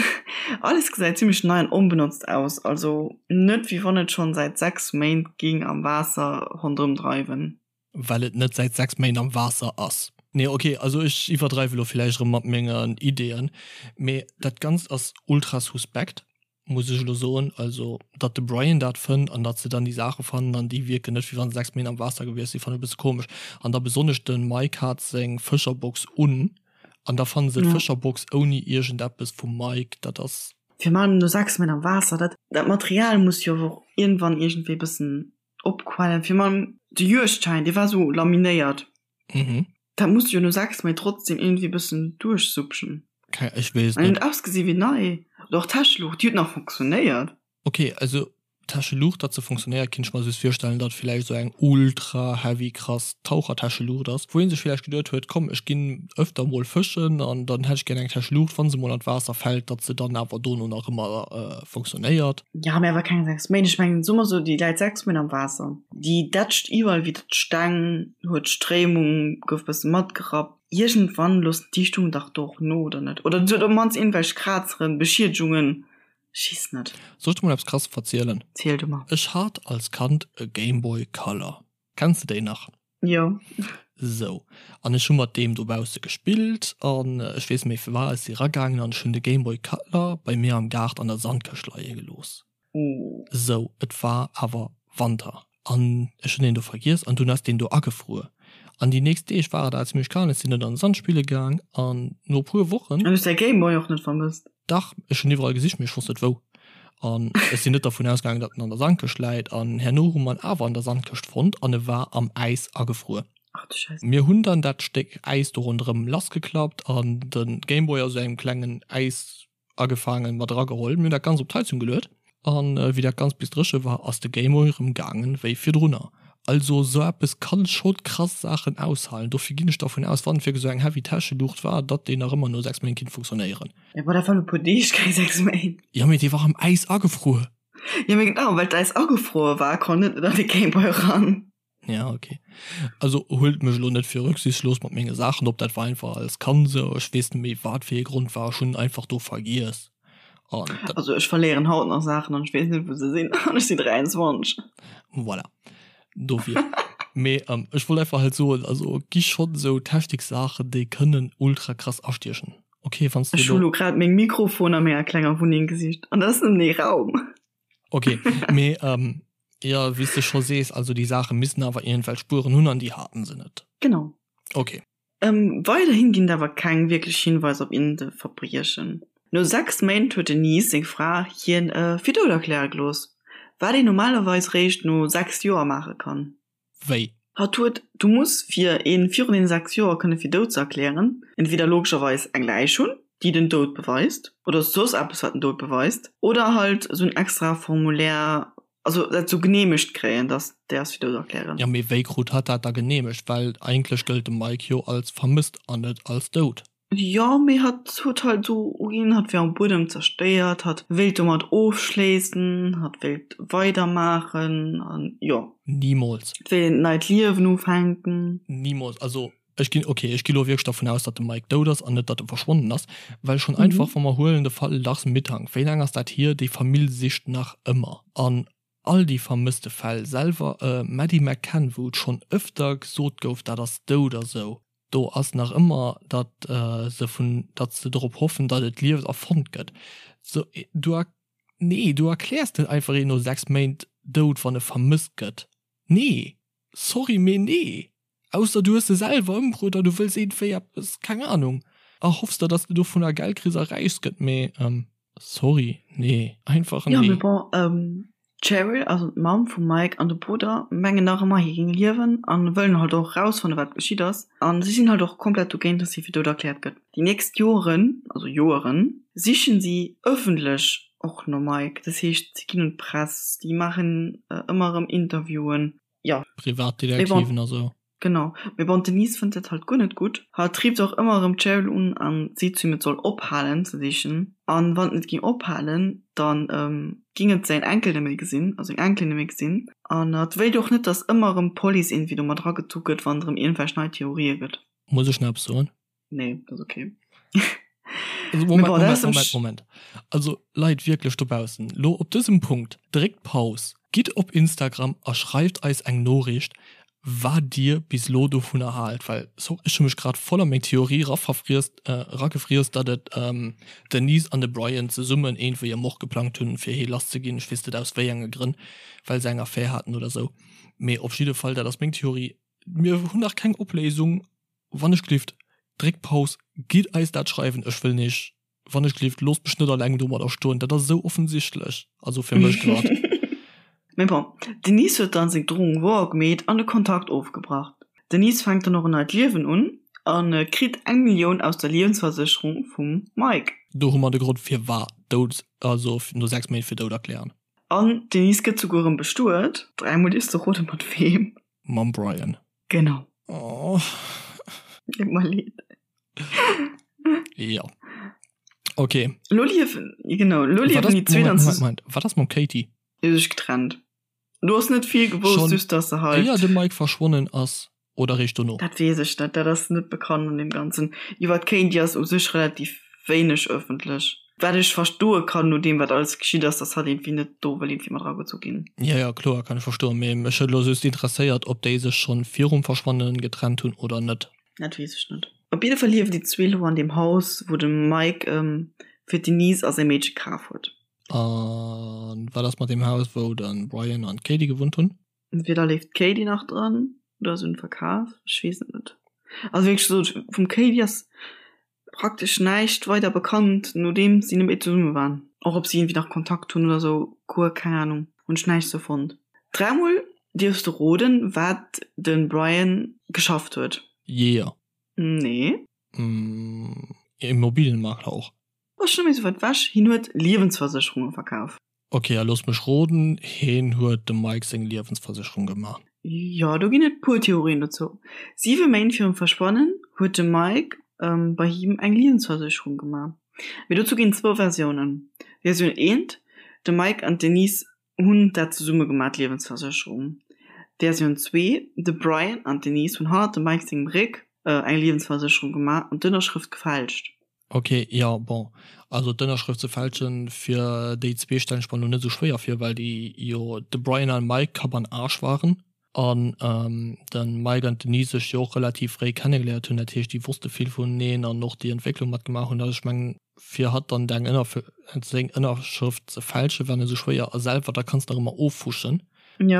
Alles gesäit zimmlech nei an onbenotzt aus, also net wéi wann et schonn säit 6 Méint ging am Waasser ronderëm dreiwen. Well et net säit 6 Méint am Waasser ass. Nee ok, also ech iwwerdreiwe lo villäicht erëm mat mengen Ideeën, mee dat Ganzt ass ultra suspekt, muss ech elo soen. Also datt de Brian dat fënnt an datt se dann déi Saache fannen an déi wierken net wéi wann se 6 Méint am Waasser gewiescht sinn, fannen ech e bësse komesch. An da besonnesch de Mike hat seng Fëscherbox un An da fannen se d'Fëscherbox ouni iergendeppes vum Mike, dat ass. Fir man no 6 Méint am Waasser, dat dat Material muss jo och iergendwann iergendwéi bëssen opquellen. Fir man de Juegdschäin, dee war sou laminéiert, dat muss jo no 6 Méint trotzdem iergendwéi bëssen duerchsupschen. Keng, ech weess et net. An huet ausgesi wéi nei. Oder och d'Täscheluucht, déi huet nach funktionéiert. Ok, also Täscheluucht, datt se funktionéiert, kinnt ech mer just virstellen, datt villäicht esou eng ultra heavy krass Tauchertäscheluucht ass, wou een sech villäicht geduet huet, komm ech ginn öfter mol fëschen an dann hätt ech gär eng Täscheluucht, wann se mol an d'Waasser fält, datt se dann awer dono nach ëmmer funktionéiert. Ja, mee awer keng 6 Méint. Ech mengen, soe mer sou, déi läit 6 Méint am Waasser, déi dätscht iwwerall widder d'Steng, huet d'Stréimung, gouf bësse matgerappt. Iergendwann loossen d'Dichtungen dach do och no, oder net? Oder se huet op d'mannst iergendwelch Krazeren, Beschiedegungen. Schiss net. Soll ech der mol eppes krasses verzielen? Ziel du mer. Ech hat als Kand e Gameboy Color. Kenns de déi nach? Jo. Sou, an ech hu mat deem dobausse gespillt an ech weess net méi firwat, ech si ragaangen an ech hunn de Game Boy Color bei mir am Gaart an der Sandkëscht leie gelooss. Sou, et war awer Wanter an ech hunn deen do vergiess an dunn ass deen do agefruer. An déi nächst Deeg war et awer zimmlech kal, ech sinn net an de Sand spille gaang an no e puer Wochen. An hues däi Game Boy och net vermësst? Dach, ech hunn iwwerall gesicht, mee ech wosst net wou. An ech sinn net dervun ausgaangen, datt en an der Sandkëscht läit. An herno hu mer en awer an der Sandkëscht fonnt an e war am Äis agefruer. Ach du Scheiss. Mir hunn dann dat Stéck Äis do ronderëm lassgeklappt an de Gameboy a sou engem klengen Äis agefaangen, mat erageholl. Mir hunn dat Ganzt op d'Heizung geluet an wéi dat Ganzt bis dréche war, ass de Gameboy erëm gaangen wéi virdrunner. Also sou eppes kann scho krass Saachen aushalen. Dofir ginn ech dervun aus, wann et wierklech sou eng heavy Täscheluucht war, datt déi nach ëmmer no 6 Méint kinnt funktionéieren. Jo bon, dat waren e puer Deeg, keng 6 Méint. Jo mee dee war am Äis agefruer. Jo mee genau, well d'Äis agefruer war, konnt net net an de Gameboy eran. Ja ok. Also huelt mech elo net fir rücksichtslos mat menge Saachen op, dat war einfach als Kand sou, ech weess net méi wat fir ee Grond war, ech hunn einfach do vergiess an dat. Also ech verléieren haut nach Saachen an ech weess net wou se sinn an ech sinn 23. Voilà, dofir. Mee ech wollt einfach halt soen, also gi schonn sou Techniksaachen déi kënnen ultra krass astiechen. Ok, wann s de Ech hu lo grad meng Mikrofon a menger klenger Wunneng gesicht an dat ass nëmmen ee Raum. Ok, mee jo, wéi s de scho sees, also déi Saache missten awer iergendwelch Spueren hunn an déi haten se net. Genau. Ok. Weiderhin ginn et awer keng wierklech Hinweiser op iergend e Verbriechen. No 6 Méint huet d'Denise, seng Fra, hien fir dout erkläre gelooss, wat een normalerweis réischt no 6 Joer maache kann. Wéi? Hatt huet, du muss fir een virun den 6 Joer kënne fir dout ze erklären, entweder logescherweis eng Läich hunn, déi den Doud beweist, oder soss eppes wat den Doud beweist, oder halt esou en extra Formulaire, also dat sou geneemegt kréien, dass déi ass fir dout erklären. Jo, mee wéi krut hatt dat da geneemegt? Well eigentlech gëllt de Mike jo als vermësst an net als dout. Jo, mee hatt huet halt esou uginn, hatt wär um Buedem zerstéiert, hatt wéilt domat ofschléissen, hatt wéilt weidermaachen an jo. Nimools. Et wéilt een neit Liewen ufänken. Nimools. Also ech ginn, ok, ech gi lo wierklech dervun aus, datt de Mike dout ass an net, datt e verschwonnen ass, well schonn einfach, wa mer huelen de Fall Lars Mittank, wéi laang ass dat hier, déi Famill sicht nach ëmmer an all déi vermësste Fäll selwer, Maddie McCann, wou et schonn ëfter gesot gouf, dat ass dout a sou. Do ass nach ëmmer, datt se vun, datt se drop hoffen, datt et lieft a fonnt gëtt. Sou, du er, nee, du erkläers net einfach een no 6 Méint dout, wann e vermësst gëtt. Nee! Sorry, mee nee! Ausser du hues se selwer ëmbruet a du wëlls iergendwéi eppes, keng Anung, erhoffs der, datt s de dovunner Geld kriss a räich gëtt, mee sorry, nee, einfach nee. Jo, mee bon, D'Cheryl, also d'Mamm vum Mike, an de Brudder mengen nach ëmmer, hie géing liewen an wëllen halt och erausfannen, wat geschitt ass. An si sinn halt och komplett dogéint, dass hie fir dout erkläert gëtt. Déi nächst Joren, also Joeren, sichen si ëffentlech och nom Mike. Dat heescht, si ginn un d'Press, déi maachen ëmmer erëm Interviewen, jo. Privatdetektiven a sou. Genau, mee bon d'Denise fënnt dat halt guer net gutt. Hatt rifft och ëmmer erëm d'Cheryl un an seet zu him et soll ophalen ze sichen an wann et net ging ophalen dann ging et säin Enkel net méi gesinn, also seng Enkelin net méi gesinn an hatt wéilt och net dass ëmmer erëm d'Police iergendwéi do mat eragezu gëtt wann et erëm iergendwelch nei Theorië gëtt. Muss ech nach eppes soen? Nee, dat ass okay. Also Moment, Moment, Moment, Moment. Also Leit wierklech dobaussen, lo op dësem Punkt, dréckt Paus, gitt op Instagram a schreift eis eng Noriicht, wat dir bis lo dovunner haalt, well so ech hu mech grad voll a meng Theorie eraverfriesst, eragefriess, datt et d'Denise an de Brian zesummen iergendwéi e Mord geplangt hunn, fir hee lass ze ginn, ech weess net aus wéi enge Grënn, well se eng Affär haten oder sou, mee op jidde Fall, dat ass meng Theorie, mir hunn nach keng Opléisung. Wann ech glift, dréckt Paus, gitt eis dat schreiwen, ech wëll nich, wann ech glift, loosst mech net alleng domadder stoen, dat ass esou offensichtlech, also fir mech grad. Mee bon, d'Denise huet dann seng Drohung wouer gemeet an de Kontakt ofgebrach. D'Denise fänkt dann och en neit Liewen un a kritt eng Millioun aus der Liewensversécherung vum Mike. Do hu mer de Grond firwat dout, also no 6 Méint fir dout erklären. An d'Denise gëtt souguer erëm bestuet, dräimol dierfs de roden mat weem. Mam Brian. Genau. Oh. Deet mer leed. Ja. Okay. Lo liewen, genau, lo liewen die zwee dann Moment, Moment, wat ass mam Katie? Die hu sech getrennt. Du has net vill gewosst, Schon just dass se halt. Éier de Mike verschwonnen ass oder réischt dono? Dat weess ech net, dat ass net bekannt an deem Ganzen. Iwwer d'Katie ass u sech relativ wéineg ëffentlech. Wat ech verstoe kann, no deem wat alles geschitt ass, dass hatt iergendwéi net do wëll iergendwéi mat eragezu ginn. Jo, jo, kloer, kann ech verstoen. Mee mech huet elo just interesséiert, ob déi sech schonn virum Verschwannen getrennt hunn oder net. Dat weess ech net. Op jidde Fall liewen déi zwee elo an deem Haus, wou de Mike fir d'Denise a säi Meedche kaf huet. A wat ass mat deem Haus, wou de Brian an d'Katie gewunnt hunn? Entweder leeft d'Katie nach dran oder se hunn et verkaf, ech weess et net. Also wéi gesot, vum Katie ass praktesch näischt weider bekannt, nodeems si net méi zesumme waren. Och ob si iergendwéi nach Kontakt hunn oder sou, guer keng Anung, hunn ech näischt sou fonnt. Dräimol dierfs de roden, wat de Brian geschafft huet. Jeeër. Nee. Immobilienmakler och. Ass scho méi sou wäit wech, hien huet Liewensversécherunge verkaf. Ok, a looss mech roden, heen huet dem Mike seng Liewensversécherung gemaach. Jo, do ginn et puer Theorien dozou. Siwe Méint virum Verschwannen huet de Mike bei him eng Liewensversécherung gemaach. Mee dozou ginn et zwou Versiounen. Versioun eent, De Mike an d'Denise hunn dat zesumme gemaach, d'Liewensversécherung. Versioun zwee, De Brian an d'Denise hunn hannert dem Mike sengem Réck eng Liewensversécherung gemaach an d'Ënnerschrëft gefälscht. Ok, jo, bon, also d'Ënnerschrëft ze fälschen fir déi zwee stellen ech mer lo net esou schwéier vir, well déi jo de Brian an Mike Kapp an Aarsch waren an de Mike an d'Denise sech jo och relativ fréi kennegeléiert hunn, dat heescht déi wosste vill vuneneen an och déi Entwécklung matgemaach hunn. Also ech mengen fir hatt dann deng seng Ënnerschrëft ze fälschen war net esou schwéier a selwer da kanns de nach ëmmer ofwuschen.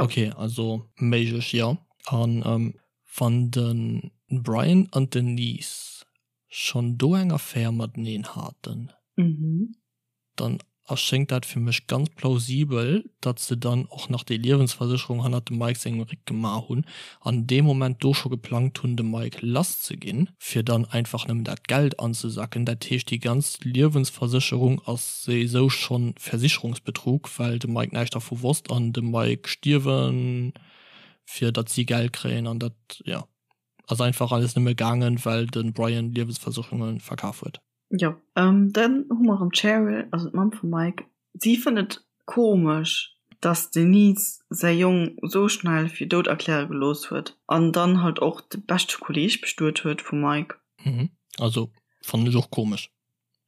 Ok, also méiglech jo. An wann de Brian an d'Denise schonn do eng Affär mateneen haten, dann erschéngt dat fir mech ganz plausibel, datt se dann och nach déi Liewensversécherung hannert dem Mike sengem Réck gemaach hunn an dee Moment do scho geplangt hunn, de Mike lass ze ginn, fir dann einfach nëmmen dat Geld anzesacken. Dat heescht, déi ganz Liewensversécherung ass souwisou schonn Versicherungsbetrug, well de Mike näischt dervu wosst an de Mike stierwen, fir datt si Geld kréien an dat, jo. Ass einfach alles nëmme gaangen, well de Brian Liewensversécherunge verkaf huet. Jo, dann hu mer erëm d'Cheryl, also d'Mamm vum Mike. Si fënnt et komesch, dass d'Denise säi Jong esou schnell fir dout erkläre gelooss huet an dann halt och de beschte Kolleeg bestuet huet vum Mike. Mhm, also fannen ech och komesch.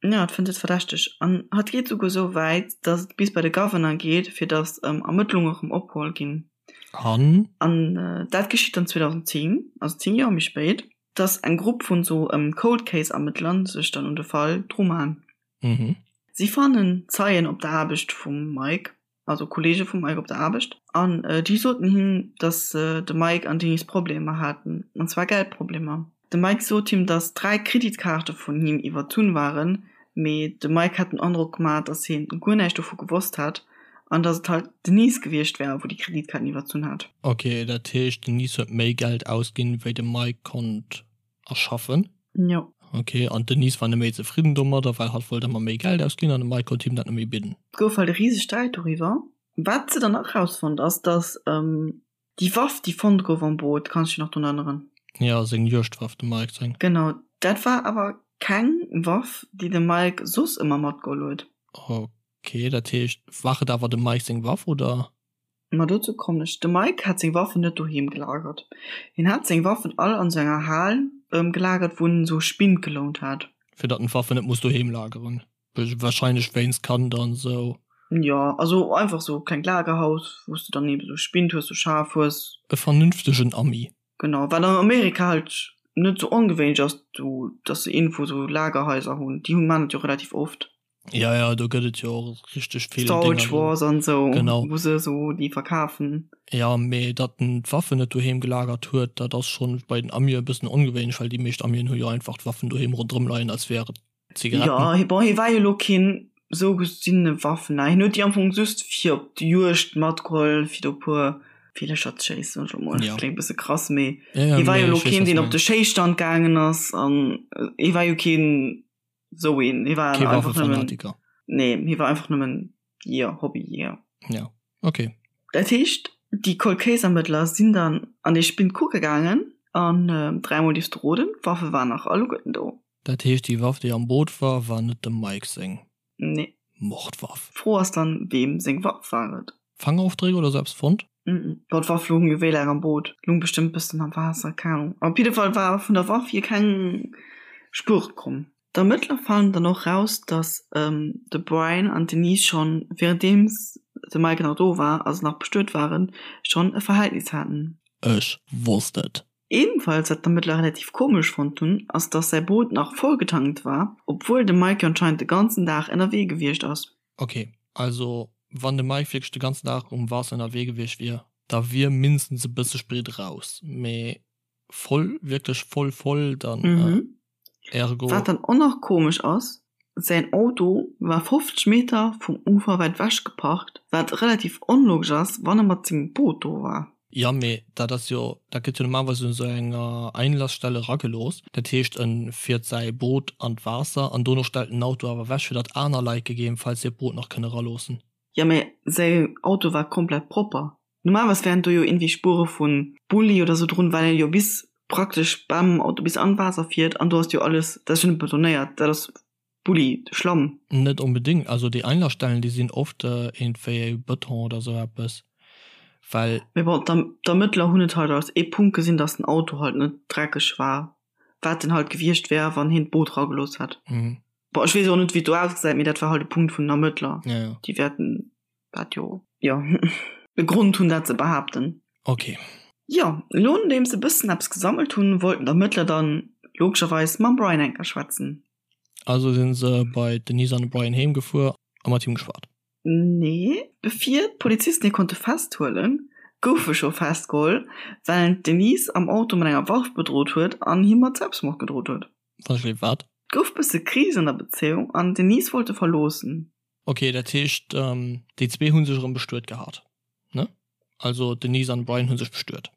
Jo, et fënnt et verdächteg an hatt geet souguer esou wäit, dass et bis bei de Governor geet, fir dass Ermëttlunge erëm opgeholl ginn. An? An dat geschitt dann 2010, also 10 Joer méi spéit, dass eng Grupp vun esou Cold Case Ermëttler sech dann un de Fall drumaan. Mhm. Si fannen Zeien op der Aarbecht vum Mike, also Kolleege vum Mike op der Aarbecht, an déi soten him, dass de Mike an d'Denise Problemer haten, an zwar Geldproblemer. De Mike sot him, dass 3 Kreditkaarte vun him iwwerzunn waren, mee de Mike hat den Androck gemaach, dass hien guer näischt dovu gewosst hat an dass et halt d'Denise gewiescht wär, wou déi Kreditkaarten iwwerzunn hat. Ok, dat heescht d'Denise huet méi Geld ausginn, wéi de Mike konnt erschaffen? Jo. Ok, an d'Denise war net méi zefridden domadder, well hatt wollt ëmmer méi Geld ausginn an de Mike konnt him dat net méi bidden. Et gouf halt e riseg Sträit doriwwer. Wat se dann nach erausfonnt ass, dass Déi Waff, déi fonnt gouf am Boot, kanns du dech nach drun erënneren? Jo, seng Juegdwaff, dem Mike seng. Genau, dat war awer keng Waff, déi de Mike soss ëmmer matgeholl huet. Ok, dat heescht, war et awer dem Mike seng Waff, oder? Ma dozou kommen ech. De Mike hat seng Waffen net doheem gelagert. Hien hat seng Waffen all an sou enger Hal gelagert, wou en esou Spind gelount hat. Fir datt en d'Waffen net muss doheem lageren. Wahrscheinlech wéinst Kand an sou. Jo, also einfach sou klengt Lagerhaus, wou s de dann eben sou Spind hues, sou Schaf hues. E vernünftegen Ami. Genau, wat an Amerika halt net sou ongewéinlech ass, do, dass se iergendwou sou Lagerhaiser hunn. Déi hunn, maan et jo relativ oft. Ja, ja, do gëtt et jo och richteg vill Storage Wars an sou, genau. wou se sou déi verkafen. Ja, mee datt en d'Waffen net doheem gelagert huet, dat ass schonn bei den Amie e bëssen ongewéinlech, well déi meescht Amien hu jo einfach d'Waffen doheem ronderëm leien, als wär et Zigaretten. Ja, bon, hie war jo lo keen sou gesinne Waffener. Hien huet déi am Fong just fir op d'Juegd matgeholl, fir do puer Villercher ze schéissen, soen ech lo mol. Ja. Kléngt bësse krass, mee ja, ja, hie war jo lo keen, deen op de Schéisstand gaangen ass an hie war jo keen sou een. Hie war Kee einfach nëmmen. Nee, hie war einfach nëmmen Jeeër, Hobbyjeeër. Ja, okay. Dat heescht, déi Cold Case Ermëttler sinn dann an dee Spind kucke gaangen an dräimol dierfs de roden, d'Waffe waren nach alleguerten do. Dat heescht déi Waff déi am Boot war, war net dem Mike seng Nee. Mordwaff? D'Fro ass dann, weem seng Waff war et? Fangofdréck oder sou eppes fonnt? Mm bon, d'Waff loung jo wéi laang am Boot? Loung bestëmmt bëssen am Waasser, keng Ahnung. Op jidde Fall war vun der Waff hier keng Spuer komm. D'Ermëttler fannen dann och raus, dass de Brian an d'Denise schonn, wärenddeems de Mike nach do war a se nach bestuet waren, schonn e Verhältnis haten. Ech wosst et. Ebenfalls wat d'Ermëttler relativ komesch fonnt hunn, ass dass säi Boot nach voll getankt war, obwuel de Mike jo anscheinend de ganzen Dag ënnerwee gewiescht ass. Ok, also wann de Mike wierklech de ganzen Dag um Waasser ënnerwee gewiescht wier, da wier mindestens e bësse Sprit raus, mee voll, wierklech voll voll, dann ergo. Wat dann och nach komesch ass, säin Auto war 50 Meter vum Ufer wäit ewech geparkt, wat relativ onlogesch ass, wann e mat sengem Boot do war. Jo, mee dat ass jo, dat gëtt jo normalerweis un esou enger Einlassstelle eragelooss. Dat heescht, en fiert säi Boot an d'Waasser an dono stellt en den Auto awer ewech, fir datt aner Leit gegebenfalls hiert Boot nach kënne eraloossen. Jo, mee säi Auto war komplett propper. Normalerweis wären do jo irgendwie Spuere vun Bulli oder sou drun, well en jo bis praktesch beim Auto bis an d'Waasser fiert an do ass jo alles, dat ass jo net betonéiert, dat ass Bulli, Schlamm. Net onbedéngt, also déi Einlassstellen déi sinn oft iergendwéi Beton oder sou eppes, well. Mee bon, d'Ermëttler hunn et halt als ee Punkt gesinn, dass den Auto halt net dreckeg war, wat en halt gewiescht wär, wann hien d'Boot ragelooss hätt. Bon, ech weess och net, wéi et do ausgesäit, mee dat war halt e Punkt vun den Ermëttler. Déi wäerten dat jo jo e Grond hunn dat ze behaapten. Ok. Jo, elo nodeems se bëssen eppes gesammelt hunn, wollten d'Ermëttler dann logescherweis mam Brian enker schwätzen. Also sinn se bei d'Denise an de Brian heem gefuer a mat him geschwat? Nee, bevir d'Polizisten hie konnte festhuelen, gouf e scho festgeholl, well en d'Denise am Auto mat enger Waff bedrot huet an him mat Selbstmord gedrot huet. Wann ech weess wat? Et gouf bësse Kris an der Bezéiung an d'Denise wollt e verloossen. Ok, dat heescht déi zwee hu sech erëm bestuet gehat, ne? Also d'Denise an de Brian hu sech bestuet.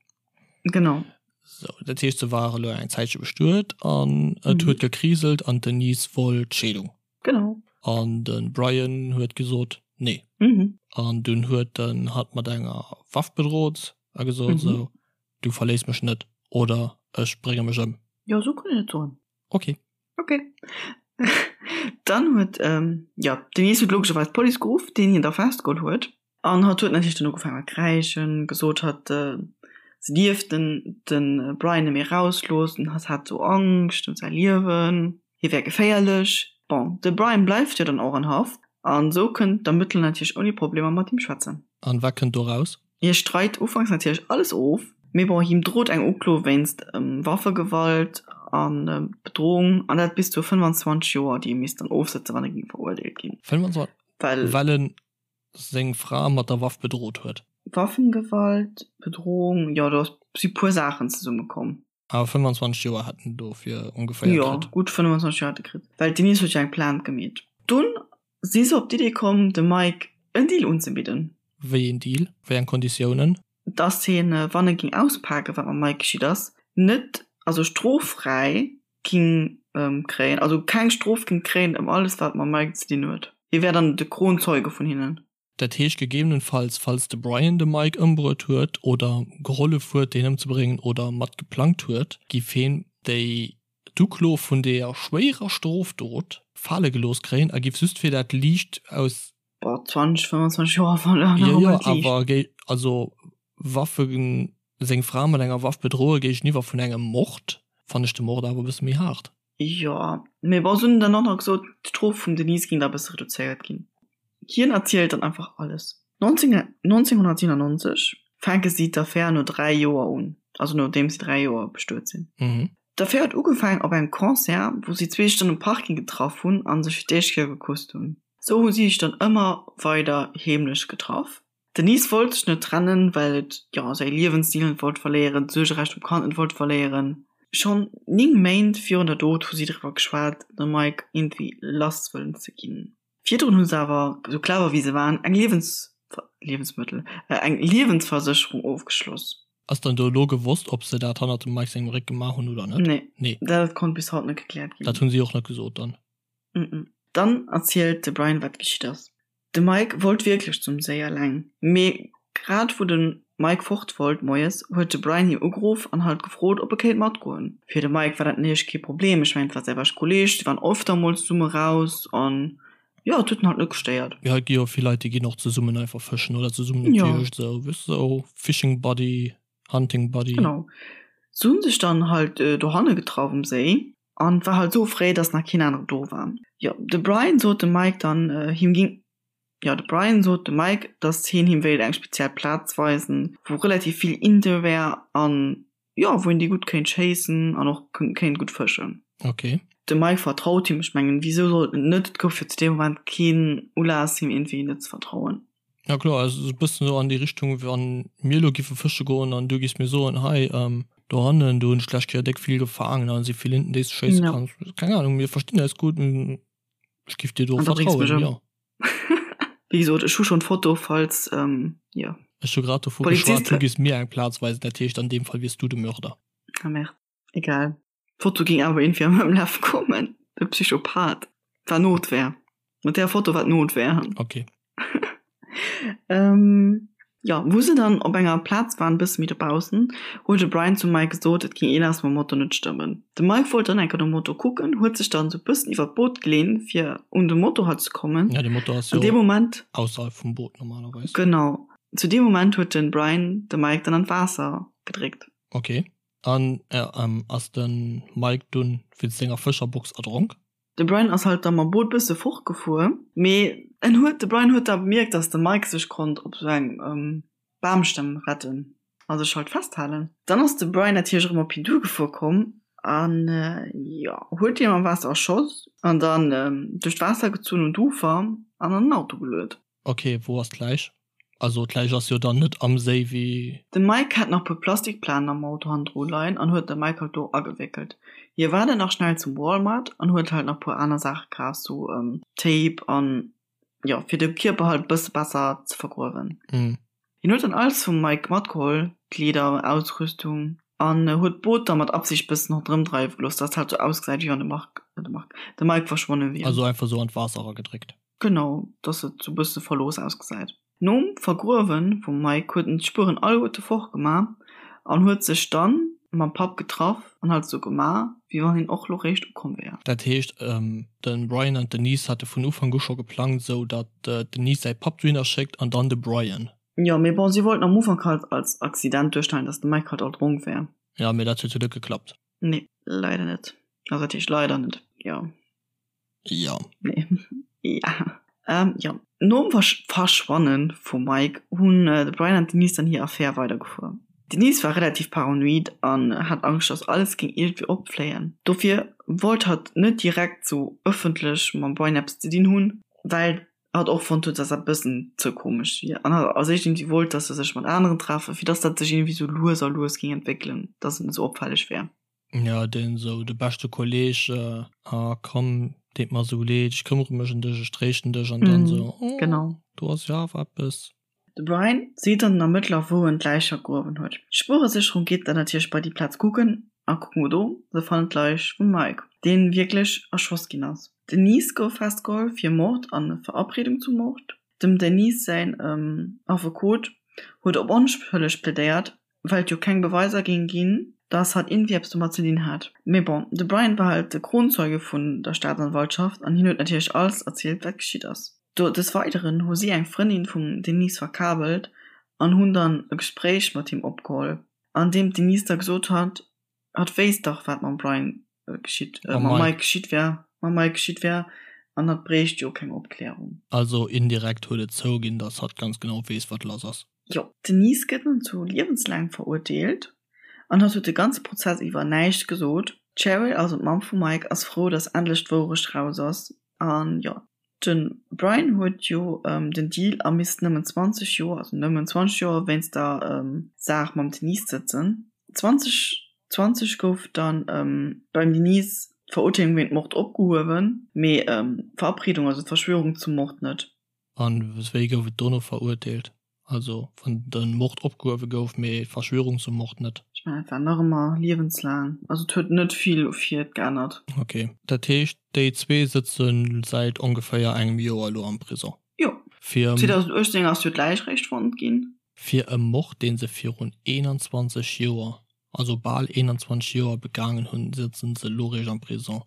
Genau. Sou, dat heescht se ware lo eng Zäitche bestuet an et huet gekriselt an d'Denise wollt d'Scheedung. Genau. An de Brian huet gesot nee. An dunn huet en hatt mat enger Waff bedrot a gesot sou, du verléiss mech net oder ech brénge mech ëm. Jo, sou kann een et soen. Ok. Ok. Dann huet, jo, d'Denise huet logescherweis d'Police geruff, deen hien da festgeholl huet. An hatt huet natierlech dann ugefaangen mat kräischen, gesot hatt se dierf den de Brian net méi erausloossen, hatt hat sou Angscht ëm säi Liewen, hie wär geféierlech. Bon, de Brian bleift jo dann och an Haft an sou kënnen d'Ermëttler natierlech ouni Problemer mat him schwätzen. An wat kënnt do raus? Hie streit ufanks natierlech alles of, mee bon, him drot eng Uklo wéinst Waffegewalt a Bedrohung, an dat bis zu 25 Joer, déi e misst dann ofsëtzen, wann e géing verurteelt ginn. 25, Well. Well en seng Fra mat der Waff bedrot huet. Waffengewalt, Bedrohung, jo, do si puer Saachen zesummekomm. Awer 25 Joer hätt en dofir ongeféier kritt. Jo, gutt 25 Joer hätt e kritt, well d'Denise huet jo eng Plainte gemeet. Dunn si se op d'Idee komm, dem Mike en Deal unzebidden. Wéi een Deal? Wéi eng Konditiounen? Dass hien, wann e ging auspaken, wat mam Mike geschitt ass, net, also stroffräi ging kréien, also keng Strof ging kréien ëm alles, wat mam Mike ze dinn huet. Hie wär dann de Kronzeuge vun hinnen. Dat heescht gegebenenfalls, falls de Brian de Mike ëmbruet huet oder gehollef huet deen ëmzebréngen oder mat geplangt huet, giff heen déi d'Uklo vun deeër schwéierer Strofdot fale gelooss kréien a giff just fir dat liicht aus. Boah, 20, 25 Joer war nach Jo, jo, awer géi, also Waffen, seng Fra mat enger Waff bedroe géigeniwwer vun engem Mord, fannen ech de Mord awer e bësse méi haart. Jo, mee bon, se hunn dann och nach gesot, d'Strof vum Denise géing da e bësse reduzéiert ginn. Hien erzielt dann einfach alles. 1997 fänke si d'Affär no 3 Joer un, also nodeem si 3 Joer bestuet sinn. D'Affär huet ugefaangen op engem Concert, wou si zwee sech dann um Parking getraff hunn a sech fir d'éischt Kéier gekusst hunn. Sou hu si sech dann ëmmer weider heemlech getraff. D'Denise wollt sech net trennen, well et, jo, säi Liewensstil net wollt verléieren, d'Suergerecht um Kand net wollt verléieren. Schonn 9 Méint virun der Dot hu si driwwer geschwat, de Mike iergendwéi lass wëllen ze ginn. Virdrun hu se awer, sou clever wéi se waren, eng Liewens, Liewensmëttel, eng Liewensversécherung ofgeschloss. Ass dann do elo gewosst, ob se dat hannert dem Mike sengem Réck gemaach hunn oder net? Nee. Nee. Dat konnt bis haut net gekläert ginn. Dat hunn si och net gesot dann. Dann erzielt de Brian, wat geschitt ass. De Mike wollt wierklech zum Séi eleng, mee grad wou de Mike fort wollt moies, huet de Brian him ugeruff an halt gefrot, ob e kéint matgoen. Fir de Mike war dat natierlech kee Problem, ech mengen et war säi beschte Kolleeg, si waren öfter mol zesumme raus an jo, et huet en halt net gestéiert. Jo, et gi jo vill Leit, déi ginn och zesummen einfach fëschen oder zesummen op d'Juegd, esou, weess de, esou Fishing Buddy, Hunting Buddy. Genau. Se hunn sech dann halt dohanne getraff um Séi. An war halt sou fréi, dass nach keen aneren do war. Jo, de Brian sot dem Mike dann, him ging, jo, de Brian sot dem Mike, dass hien him wéilt eng speziell Plaz weisen, wou relativ vill Inte wär an, jo, wou een déi gutt kéint schéissen an och kéint gutt fëschen. Ok. De Mike vertraut him, ech mengen, wisou sollt en net? Et gouf jo zu deem Moment keen Ulass, him iergendwéi net ze vertrauen. Ja kloer, also esou e bëssen esou an déi Richtung, wann mir elo giffe fësche goen an du giffs mir soen, hei dohannen, do hunn ech d'lescht Kéier déck vill gefaangen, an si vill Inten déi s de schéisse Ja. kanns. Keng Ahnung, mir verstinn eis gutt, ech giff dir do An da bréngs du mech vertrauen, ëm. jo. Wéi gesot, ech hu schonn d'Foto, falls, jo. Ech hu grad dovu geschwat, Poliziste. du giffs mir eng Plaz weisen, dat heescht an deem Fall wiers du de Mörder. Ah merde, egal. D'Foto ging awer iergendwéi an mengem Laf kommen. De Psychopath. War Notwehr. Mat där Foto war d'Notwehr. Okay. Ähm, jo, wou se dann op enger Plaz waren, bësse méi dobaussen, huet de Brian zum Mike gesot, et ging eelass mam Motor net stëmmen. De Mike wollt dann enker nom Motor kucken, huet sech dann sou bëssen iwwer d'Boot geleent, fir un de Motor halt ze kommen. Ja, de Motor ass An jo deem Moment. ausserhalb vum Boot normalerweis. Genau. Zu deem Moment huet den Brian de Mike dann an d'Waasser gedréckt. Okay. An ass de Mike dunn wéinst senger Fëscherbox erdronk? De Brian ass halt da mam Boot bësse fortgefuer, mee en huet, de Brian huet da bemierkt, dass de Mike sech konnt op sou eng Bamstamm retten a sech halt festhalen. Dann ass de Brian natierlech erëm op hien duergefuer komm an, jo, huet hien am Waasser erschoss an dann duerch d'Waasser gezunn un d'Ufer an an den Auto geluet. Ok, wou ass d'Läich? Also d'Läich ass jo dann net am Séi wéi. De Mike hat nach puer Plastikplanen am Auto hannendru leien an huet de Mike halt do agewéckelt. Hie war dann nach schnell zum Walmart an huet halt nach puer aner Saache kaf, sou Tape an jo fir de Kierper halt bësse besser ze vergruewen. Hien huet dann alles vum Mike matgeholl, Kleeder, Ausrüstung an huet d'Boot da mat Absicht bëssen ronderëm dreiwe gelooss, dass et halt sou ausgesäit wéi wann de Marc, de Marc, de Mike verschwonne wier. Also einfach sou an d'Waasser eragedréckt. Genau, dass et sou bësse verlooss ausgesäit. Nom Vergruewe vum Mike huet en d'Spueren alleguerte fortgema an huet sech dann mam Papp getraff an halt sou gema, wéi wann hien och lo réischt ukomm wär. Dat heescht, de Brian an d'Denise hate vun Ufank u scho geplangt, sou datt d'Denise säi Papp dohinner schéckt an dann de Brian. Jo, mee bon, si wollten am Ufank halt als Accident duerstellen, dass de Mike halt erdronk wär. Jo, mee dat huet jo net geklappt. Nee, leider net. Also dat heescht leider net, jo. Ja. Nee. Ja. Ähm, ja. Nom Versch Verschwanne vum Mike hunn äh, de Brian an d'Denise dann hir Affär weidergefuer. D'Denise war relativ paranoid an hat Angscht, dass alles géing iergendwéi opfléien. Dofir wollt hatt net direkt sou ëffentlech mam Brian eppes ze dinn hunn, well hatt och fonnt huet, dass dat e bëssen ze komesch wier. An hatt als éischt iergendwéi wollt, dass se sech mat aneren treffen, fir dass dat sech iergendwéi sou lues a lues géing entwéckelen, dass et net sou opfälleg wär. Ja, deen esou de beschte Kolleg, ah komm, deet mer esou leed, ech këmmere mech ëm dech, ech tréischten dech an dann esou, oh, Genau. do ass jo awer eppes. De Brian seet dann den Ermëttler, wou en d'Läich vergruewen huet. D'Spueresécherung geet dann natierlech bei déi Plaz kucken a kucken no do, se fannen d'Läich vum Mike, deen wierklech erschoss ginn ass. D'Denise gouf festgeholl fir Mord an Verabredung zum Mord. Dem Denise säin Affekot huet op onschëlleg plädéiert, well et jo keng Beweiser géing ginn, dass hatt iergendwéi eppes domat ze dinn hat. Mee bon, de Brian war halt de Kronzeuge vun der Staatsanwaltschaft an hien huet natierlech alles erzielt, wat geschitt ass. Do des Weideren hu si eng Frëndin vum Denise verkabelt an hunn dann e Gespréich mat him opgeholl, an deem d'Denise da gesot hat, Hatt wéisst dach, wat mam Brian geschitt, äh, mam Mike geschitt wär, mam Mike geschitt wär, an hatt bréicht jo keng Opklärung. Also indirekt huet et zouginn, dass hatt ganz genau weess, wat lass ass. Jo, d'Denise gëtt nun zu liewenslaang verurteelt an hatt huet de ganze Prozess iwwer näischt gesot. D'Cheryl, also d'Mamm vum Mike, ass frou, dass endlech d'Wourecht raus ass an jo, de Brian huet jo den Deal a misst nëmmen 20 Joer, also nëmmen 20 Joer wéinst der Saach mam Denise sëtzen. 2020 gouf dann beim Denise d'Verurteelung wéint Mord opgehuewen, mee d'Verabredung, also d'Verschwörung zum Mord net. An wéi gouf et dono verurteelt? Also wann de Mord opgehuewe gouf, mee d'Verschwörung zum Mord net? Ech mengen et war nach ëmmer liewenslaang. Also et huet net vill u fir et geännert. Ok, dat heescht déi zwee sëtze säit ongeféier engem Joer elo am Prison? Jo. Fir. 2018 ass jo d'Läich réischt fonnt ginn. Fir e Mord dee se virun 21 Joer, also bal 21 Joer begaangen hunn, sëtzen se elo réischt am Prison.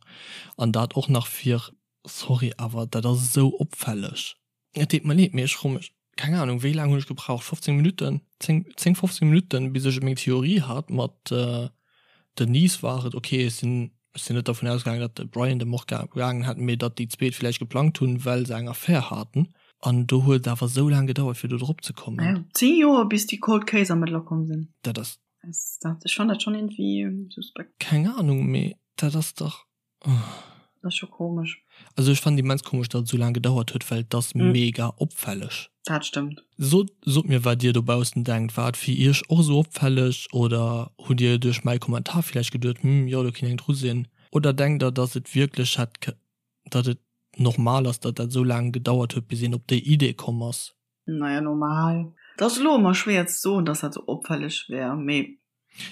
An dat och nach fir. Sorry, awer dat ass esou opfälleg. Et deet mer leed, mee ech froe mech, keng Ahnung, wéi laang hunn ech gebraucht, 15 Minutten, 10, 10, 15 Minutten, bis ech meng Theorie hat mat Denise war et, okay, ech sinn. Ech sinn net dervun ausgaangen, datt de Brian de Mord begaangen hätt, mee datt déi zweet villäicht geplangt hunn, well se eng Affär haten. An do huet et awer esou laang gedauert, fir do drop ze kommen. Ja, 10 Joer, bis déi Cold Case Ermëttler komm sinn. Dat ass. Dat, ech fann dat schonn iergendwéi suspekt. Keng Ahnung, mee dat ass dach. Dat ass scho komesch. Also ech fannen immens komesch, datt et esou laang gedauert huet, well et ass mega opfälleg. Dat stëmmt. Sot sot mir wat dir dobaussen denkt, war et fir iech och esou opfälleg oder hutt dir duerch mäi Kommentar villäicht geduet, hm jo do kinnt eng dru sinn? Oder denkt der datt et wierklech hätt datt et normal ass datt dat esou laang gedauert huet bis een op déi Idee komm ass? Naja normal, et ass elo ëmmer schwéier ze soen datt dat esou opfälleg wär, mee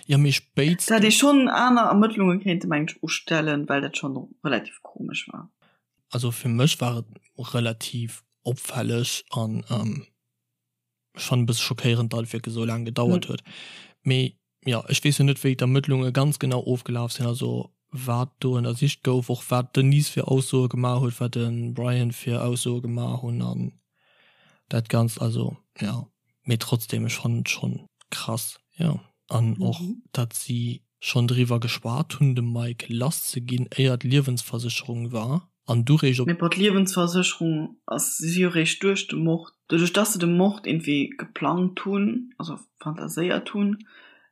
Jo mee spéitstens. Dat hätt ee schonn aner Ermëttlunge kéinte mengen ech ustellen, well dat schonn relativ komesch war. Also fir mech war et relativ opfälleg an ech fannen e bësse schockéierend, datt et wierklech esou laang gedauert huet. Mee jo, ech weess jo net wéi d'Ermëttlunge ganz genau ofgelaf sinn, also wat do ënnersicht gouf, och wat d'Denise fir Aussoe gemaach huet, wat de Brian fir Aussoe gemaach hunn an dat Ganzt. Also jo, mee trotzdem, ech fannen et schonn krass, jo. An och datt si schonn driwwer geschwat hunn, de Mike lass ze ginn, éier d'Liewensversécherung war an du réischt op. Mee bon, d'Liewensversécherung ass si jo réischt duerch de Mord, doduerch dass se de Mord iergendwéi geplangt hunn, also fantaséiert hunn,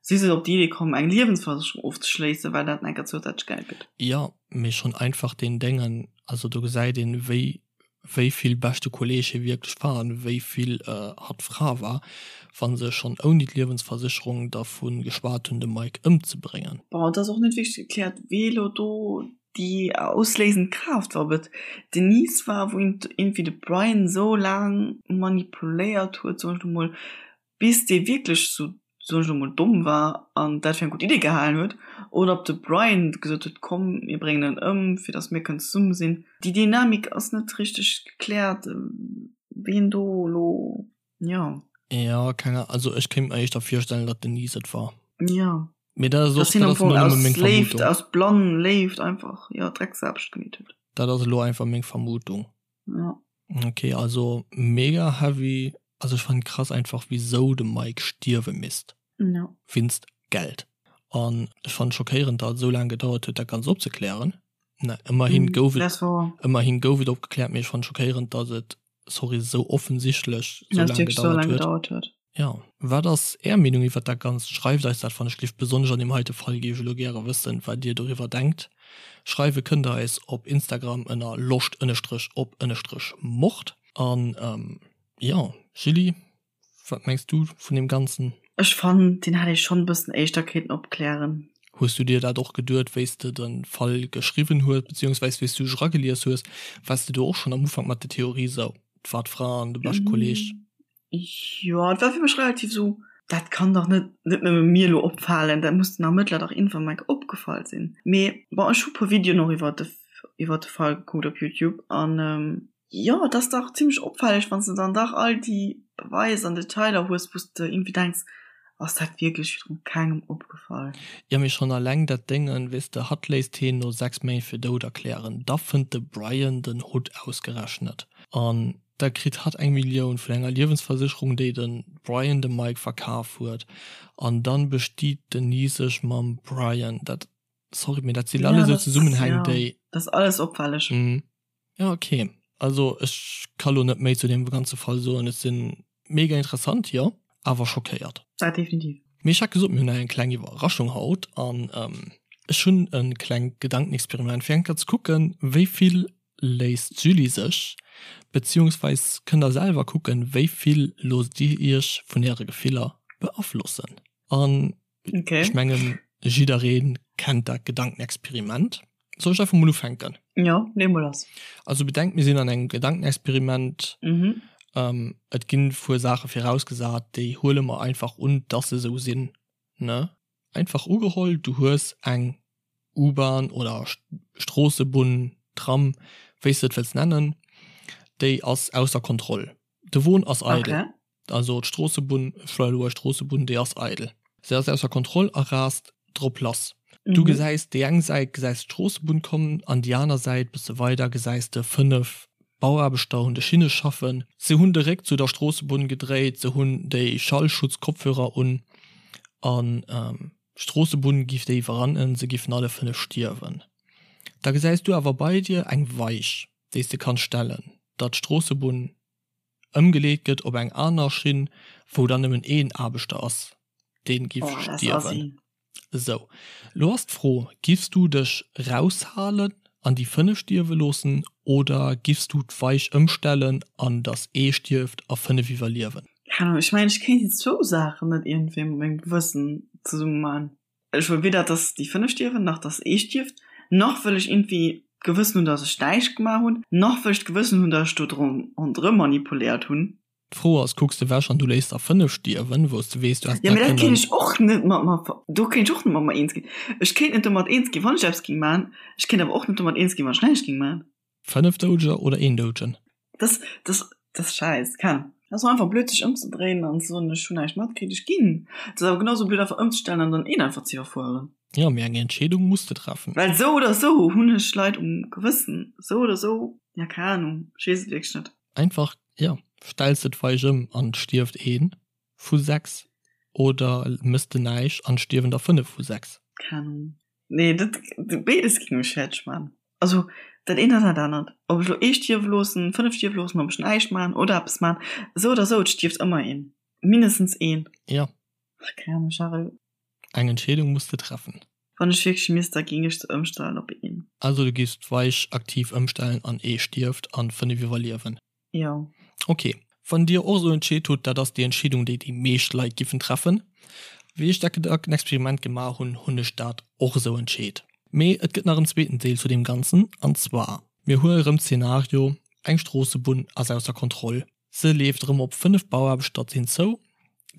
si se op déi Idee komm, eng Liewensversécherung ofzeschléissen, well dat enker zousätzlech Geld gëtt. Jo, mee schonn einfach deen Déngen, also do gesäit een, wéi wéi vill beschte Kolleg hie wierklech war an wéi vill hatt Fra war, wa se schonn ouni d'Liewensversécherung dervu geschwat hunn, de Mike ëmzebréngen. Bon, et ass och net wierklech gekläert, wee elo do déi ausléisend Kraaft war, ob et d'Denise war, wou iergendwéi de Brian esou laang manipuléiert huet, soen ech elo mol, bis dee wierklech sou, soen ech elo mol, domm war an dat fir eng gutt Idee gehalen huet, oder ob de Brian gesot huet, komm mir bréngen en ëm, fir datt mir kënnen zesumme sinn. Déi Dynamik ass net richteg gekläert, ween do elo, jo. Jo, keng Ahnung, also ech kéint mer éischter virstellen, datt d'Denise et war. Jo. Mee dat ass och, dat ass elo nëmme meng Vermutung. Aus blann Léift einfach, jo, Drecksaarbecht gemeet huet. Dat ass elo einfach meng Vermutung. Ja. Ok, also mega heavy. Also ech fannen krass einfach wisou de Mike stierwe misst. Ja. Winst Geld. An ech fannen schockéierend dat et esou laang gedauert huet dat ganzt opzeklären. Na ëmmerhin gouf et ëmmerhin gouf et opgekläert, mee ech fannen schockéierend dat et sorry esou offensichtlech esou laang gedauert huet. Jo, wat ass är Meenung iwwert dat Ganzt? Schreift eis dat wann ech gelift. Besonnesch an deem heite Fall géif ech elo gäre wëssen, wat dir doriwwer denkt. Schreiwe kënnt der eis op Instagram ënner loscht ënnestrech op ënnestrech mord. An jo, Julie, wat mengs du vun deem Ganzen? Ech fannen, deen hätt ee schonn e bëssen éischter kéinten opklären. Hues du dir dat och geduet, wéi s de de Fall geschriwwen hues, beziehungsweis wéi s du dech eragelies hues? Waars de do och schonn am Ufank mat der Theorie sou, 't war d'Fra an de beschte Kolleg? Jo, et war fir mech relativ sou, dat kann dach net net nëmme mir elo opfalen, dat muss den Ermëttler dach iergendwann mol enk opgefall sinn. Mee bon, ech hu puer Videoen och iwwer de iwwer de Fall gekuckt op Youtube an jo, et ass dach zimmlech opfälleg, wann s de dann dach all déi Beweis an Detailer hues, wou s de iergendwéi denks, ass dat wierklech virdru kengem opgefall? Jo, mee schonn alleng dat Déngen, weess de, hatt léisst heen no 6 Méint fir dout erklären, da fënnt de Brian den Hutt ausgerechnet an Da kritt hatt eng Millioun vun enger Liewensversécherung, déi de Brian dem Mike verkaf huet. An dann bestiet d'Denise sech mam Brian. Dat, sorry, mee dat sinn alles esou Zesummenhäng, déi. Dat ass alles opfälleg. Ja, ok. Also ech ka lo net méi zu deem ganze Fall soen. Ech sinn mega interessant, jo, awer schockéiert. Dat definitiv. Mee ech hat gesot, mir hunn nach eng kleng Iwwerraschung haut. An ech hunn e klengt Gedankenexperiment, fir eng Kéier ze kucken, wéi vill léisst d'Julie sech, beziehungsweis kënnt der selwer kucken, wéi vill loosst dir iech vun äre Gefiller beaflossen. An okay. ech mengen jidderee kennt dat Gedankenexperiment. Soll ech einfach mol ufänken? Jo, lee mol lass. Also bedenkt, mir sinn an engem Gedankenexperiment. Mhm. Ähm, et ginn e puer Saache virausgesat, déi huele mer einfach un, dass se esou sinn, ne? Einfach ugeholl, du hues eng U-Bahn oder Stroossebunn, Tram, wéi s de et wëlls nennen, déi ass ausser Kontroll. De Won ass eidel. Also d'Stroossebunn, ech schwätzen elo Stroossebunn, déi ass eidel. Se ass ausser Kontroll a raast drop lass. Du gesäis déi eng Säit gesäis d'Stroossebunn kommen an déi aner Säit, bësse weider, gesäis de 5 Bauaarbechter hunn de Schinne schaffen. Se hunn de Réck zu der Stroossebunn gedréit, se hunn déi Schallschutzkopfhörer un an d'Stroossebunn giff déi iwwerrannen, se giffen alle 5 stierwen. Da gesäis du awer bei dir eng Weich, déi s de kanns stellen, datt d'Stroossebunn ëmgeleet gëtt op eng aner Schinn, wou dann nëmmen een Aarbechter ass, dee giff stierwen. Esou, lo ass d'Fro, Giffs du dech raushalen an déi 5 stierwe loossen oder giffs du d'Weich ëmstellen an dass ee stierft a 5 iwwerliewen? Keng Ahnung, ech mengen ech kéint déi zwou Saachen net iergendwéi mat mengem Gewëssen zesumme man. Ech wëll weder dass déi 5 stierwen, nach dass ee stierft, nach wëll ech iergendwéi d'Gewëssen hunn, dass ech näischt gemaach hunn, nach wëll ech d'Gewëssen hunn, dass ech do ronderëm manipuléiert hunn. D'Fro ass, Kucks de wech an du léiss der 5 stierwen, wou s de weess, du häss dat kënnen. Jo, mee dat kéint ech och net mat mer, do kéint ech och net mat mer eens ginn. Ech kéint net domat eens ginn, wann ech eppes géing maachen. Ech kéint awer och net domat eens ginn, wann ech näischt géing maachen. 5 Doudeger oder een Doudegen? Dat, dat, dat ass schäiss. Keng. Dat ass och einfach blöd, sech ëmzedréinen an ze soen, ech hunn näischt matkritt, ech ginn. Et ass awer genau sou blöd, einfach ëmzestellen an dann een einfach ze iwwerfueren. Jo, mee eng Entscheedung muss de treffen. Well sou oder sou hunn ech Leit um Gewëssen. Sou oder sou, ja, keng Ahnung, ech weess et wierklech net. Einfach, jo, stells de d'Weich ëm an et stierft ee vu 6 oder mëss de näischt an et stierwen der 5 vu 6? Keng Ahnung. Nee, dat, béides géing mech fäerdeg maachen. Also dat eent an dat anert. Ob ech elo ee stierwe loossen, 5 stierwe loossen, ob ech näischt maachen oder eppes maachen, esou oder esou, et stierft ëmmer een. Mindestens een. Jo. Ach, keng Ahnung, Charel. Eng Entscheedung muss de treffen. Wann ech wierklech misst, da géing ech se ëmstellen op een. Also du giffs d'Weich aktiv ëmstellen an ee stierft an 5 iwwerliewen? Jo. Ok. Wann dir och esou entscheet hutt, dat ass déi Entscheedung déi déi meescht Leit giffen treffen. Wéi ech dat Gedankenexperiment gemaach hunn, hunn ech dat och esou entscheet. Mee et gëtt nach en zweeten Deel zu deem Ganzen an zwar, mir huele rëm d'Szenario, eng Stroossebunn ass ausser Kontroll. Se leeft erëm op 5 Bauaarbechter zou.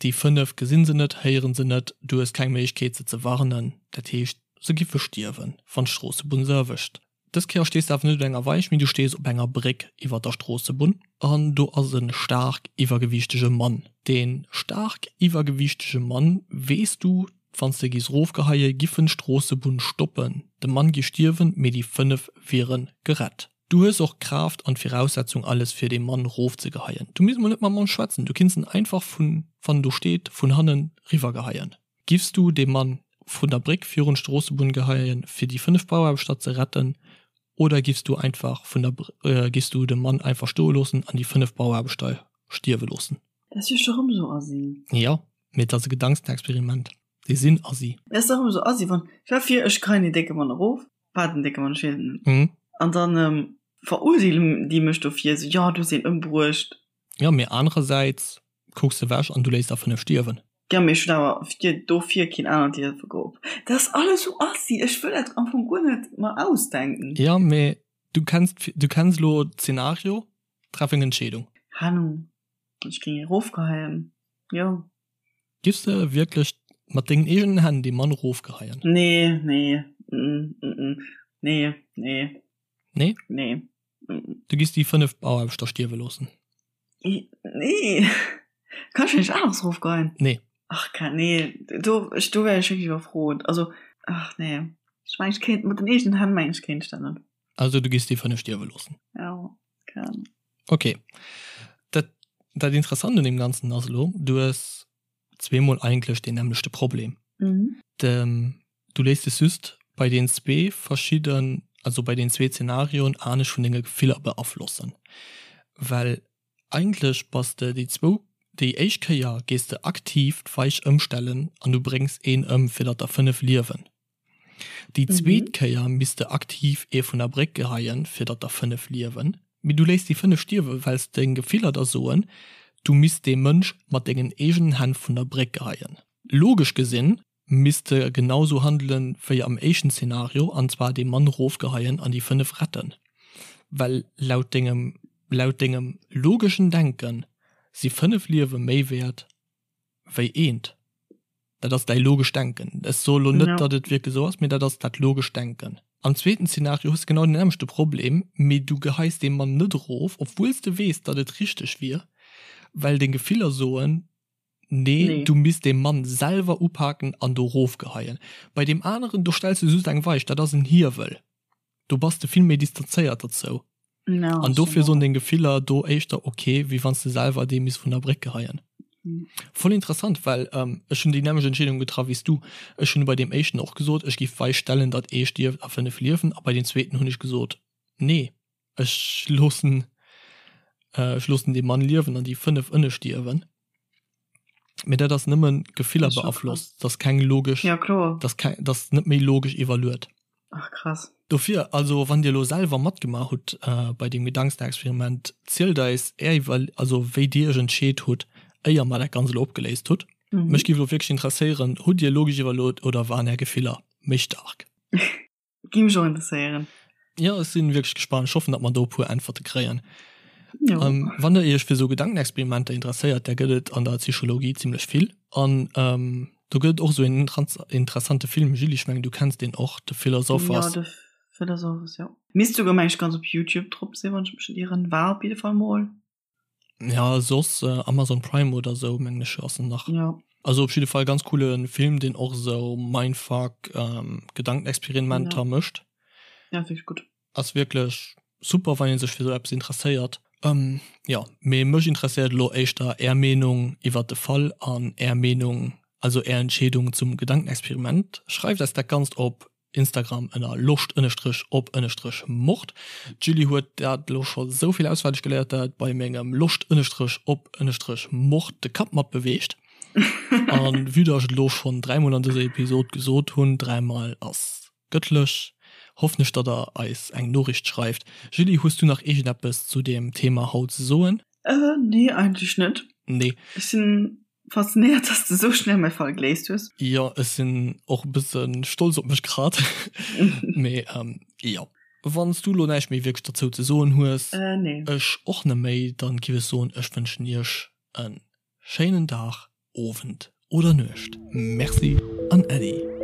Déi 5 gesinn se net, héieren se net, du hues keng Méiglechkeet se ze warnen. Dat heescht, se giffe stierwen, wann d'Stroossebunn se erwëscht. Dës Kéier stees de awer net op enger Weich, mee du stees op enger Bréck iwwer der Stroossebunn an do ass e staark iwwergewiichtege Mann. Dee staark iwwergewiichtege Mann, weess du, wann s de giss rofgeheie giffen d'Stroossebunn stoppen. De Mann gi stierwen, mee déi 5 wiere gerett. Du hues och d'Kraaft an d'Viraussetzung alles fir dee Mann rofzegeheien. Du misst mol net mam Mann schwätzen, du kinns en einfach vun, wann en do steet, vun hannen riwwergeheien. Giffs du dee Mann vun der Bréck virun d'Stroossebunn geheien fir déi 5 Bauaarbechter ze retten oder giffs du einfach vun der, giffs du de Mann einfach stoe loossen an déi 5 Bauaarbechter stierwe loossen? Dat ass jo scho rëm sou assi. Jo, mee et ass e Gedankenexperiment. Déi sinn assi. Dat ass dach rëm sou assi, wann, stell vir ech geheien deen décke Mann erof, War den décke Mann, ech weess et net. Mhm. An dann ähm, verurteelen déi mech dofir, sou, jo, du hues een ëmbruecht. Jo, mee anerersäits kucks de wech an du léiss der 5 stierwen. Jo, mee ech hunn awer fir dofir keen anert Liewe geholl. Dat ass alles sou assi, ech wëll dat am Fong guer net mer ausdenken. Jo, mee du kenns, du kenns elo d'Zenario, treff eng Entscheedung. Keng Ahnung, ech géing erofgeheien, jo. Giffs de wierklech mat dengen eegenen Hänn dee Mann rofgeheien? Nee, nee, mm, mm, nee, nee. Nee? Nee. Mm. Du giffs déi 5 Bauaarbechter stierwe loossen? Nee. Kann ech näischt aneres rofgeheien? Nee. Ach, kein, nee, do, ech, do wär ech wierklech iwwerfrot. Also, ach nee. Ech mengen, ech kéint, mat den eegenen Hänn mengen ech kéint ech dat net. Also du giffs déi 5 stierwe loossen? Jo, kann. Ok. Dat, dat Interessant un deem Ganzen ass elo, du hues zweemol eigentlech deen nämmlechte Problem. Mhm. De, du léiss dech just bei den zwee verschidden, also bei den zwee Zenarioen anescht vun denge Gefiller beaflossen. Well eigentlech bass de déi zwou, déi éischt Kéier gees de aktiv d'Weich ëmstellen an du bréngs een ëm fir datt der 5 liewen. Déi zweet Kéier misst de aktiv ee vun der Bréck geheien, fir datt der 5 liewen. Mee du léiss déi 5 stierwen, well s deng Gefiller der soen, du misst dee Mënsch mat dengen eegenen Hänn vun der Bréck geheien. Logesch gesinn misst de genau sou handelen wéi am éischten Szenario, an zwar dee Mann rofgeheien an déi 5 retten. Well laut dengem laut dengem logeschen Denken si 5 Liewe méi wäert wéi eent. Dat ass däi logescht Denken. Ech soe lo net, datt et wierklech esou ass, mee dat ass dat logescht Denken. Am zweeten Zeenario hues de genau den nämmlechte Problem, mee du geheis dee Mann net erof, obwuel s de weess, datt et richteg wier, well deng Gefiller soen, Nee, du misst dee Mann selwer upaken an do erofgeheien. Bei deem aneren, do stells du just eng Weich, dat ass en Hiewel. Do bass de vill méi distanzéiert derzou. An dofir soen deng Gefiller do éischter ok, wéi wann s de selwer dee misst vun der Bréck geheien. Voll interessant, well ech hunn déi nämmlecht Entscheedung getraff wéi s du. Ech hunn bei deem éischten och gesot, ech giff wei stellen, datt ee stierft a 5 liewen a bei deem zweeten hunn ech gesot, nee, ech loossen ech loossen dee Mann liewen an déi 5 ënne stierwen. Mee dat ass nëmmen Gefiller beaflosst, dat ass keng logesch, ja, kloer. dat ass keng, dat ass net méi logesch iwwerluet. Ach krass. Dofir, also wann dir elo selwer matgemaach hutt bei deem Gedankenexperiment, zielt eis är Iwwer, also wéi dir iech entscheet hutt, éier mer dat Ganzt elo opgeléist hutt. Mech géif elo wierklech interesséieren, hutt dir logesch iwwerluet oder waren är Gefiller méi staark? Géif mech och interesséieren. Jo, ech sinn wierklech gespannt. Ech hoffen, datt mer do e puer Äntwerte kréien. Jo. Wann der iech fir esou Gedankenexperimenter interesséiert, där gëtt et an der Psychologie zimlech vill. An do gëtt et och esou een interessante Film, Julie, ech mengen du kenns deen och, The Philosophers. Jo, The Philosophers, jo. Misst souguer, meng ech, ganz op Youtube drop sinn, wann ech mech net ieren. War op jidde Fall mol. Ja, soss Amazon Prime oder sou mengen ech ass en nach. Ja. Also op jidde Fall ganz coole Film, deen och sou Mindfuck, Gedankenexperimenter ja. mécht. Ja, wierklech gutt. Ass wierklech super, wann ee sech fir sou eppes interesséiert. Ähm, jo, mee mech interesséiert elo éischter är Meenung iwwert de Fall an är Meenung, also är Entscheedung zum Gedankenexperiment. Schreift eis dat Ganzt op Instagram ënner loscht ënnestrech op ënnestrech mord. D'Julie huet dat elo scho sou vill auswenneg geléiert, dat et bei mengem loscht ënnestrech op ënnestrech mord de Kapp mat beweegt. An vue dass ech et elo schonn dräimol an dëser Episod gesot hunn, dräimal ass gëttlech, hoffen ech, datt der eis eng Noriicht schreift. Julie, hues du nach iergendeppes zu deem Thema haut ze soen? Nee, eigentlech net. Nee. Ech sinn Faszinéiert, dass de sou schnell mäi Fall geléist hues. Jo, ech sinn och e bësse stolz op mech grad. Mee jo. Wann s du elo näischt méi wierklech derzou ze soen hues, Nee. ech och net méi, dann giff ech soen, ech wënschen iech e schéinen Dag, Owend oder Nuecht. Merci an Äddi.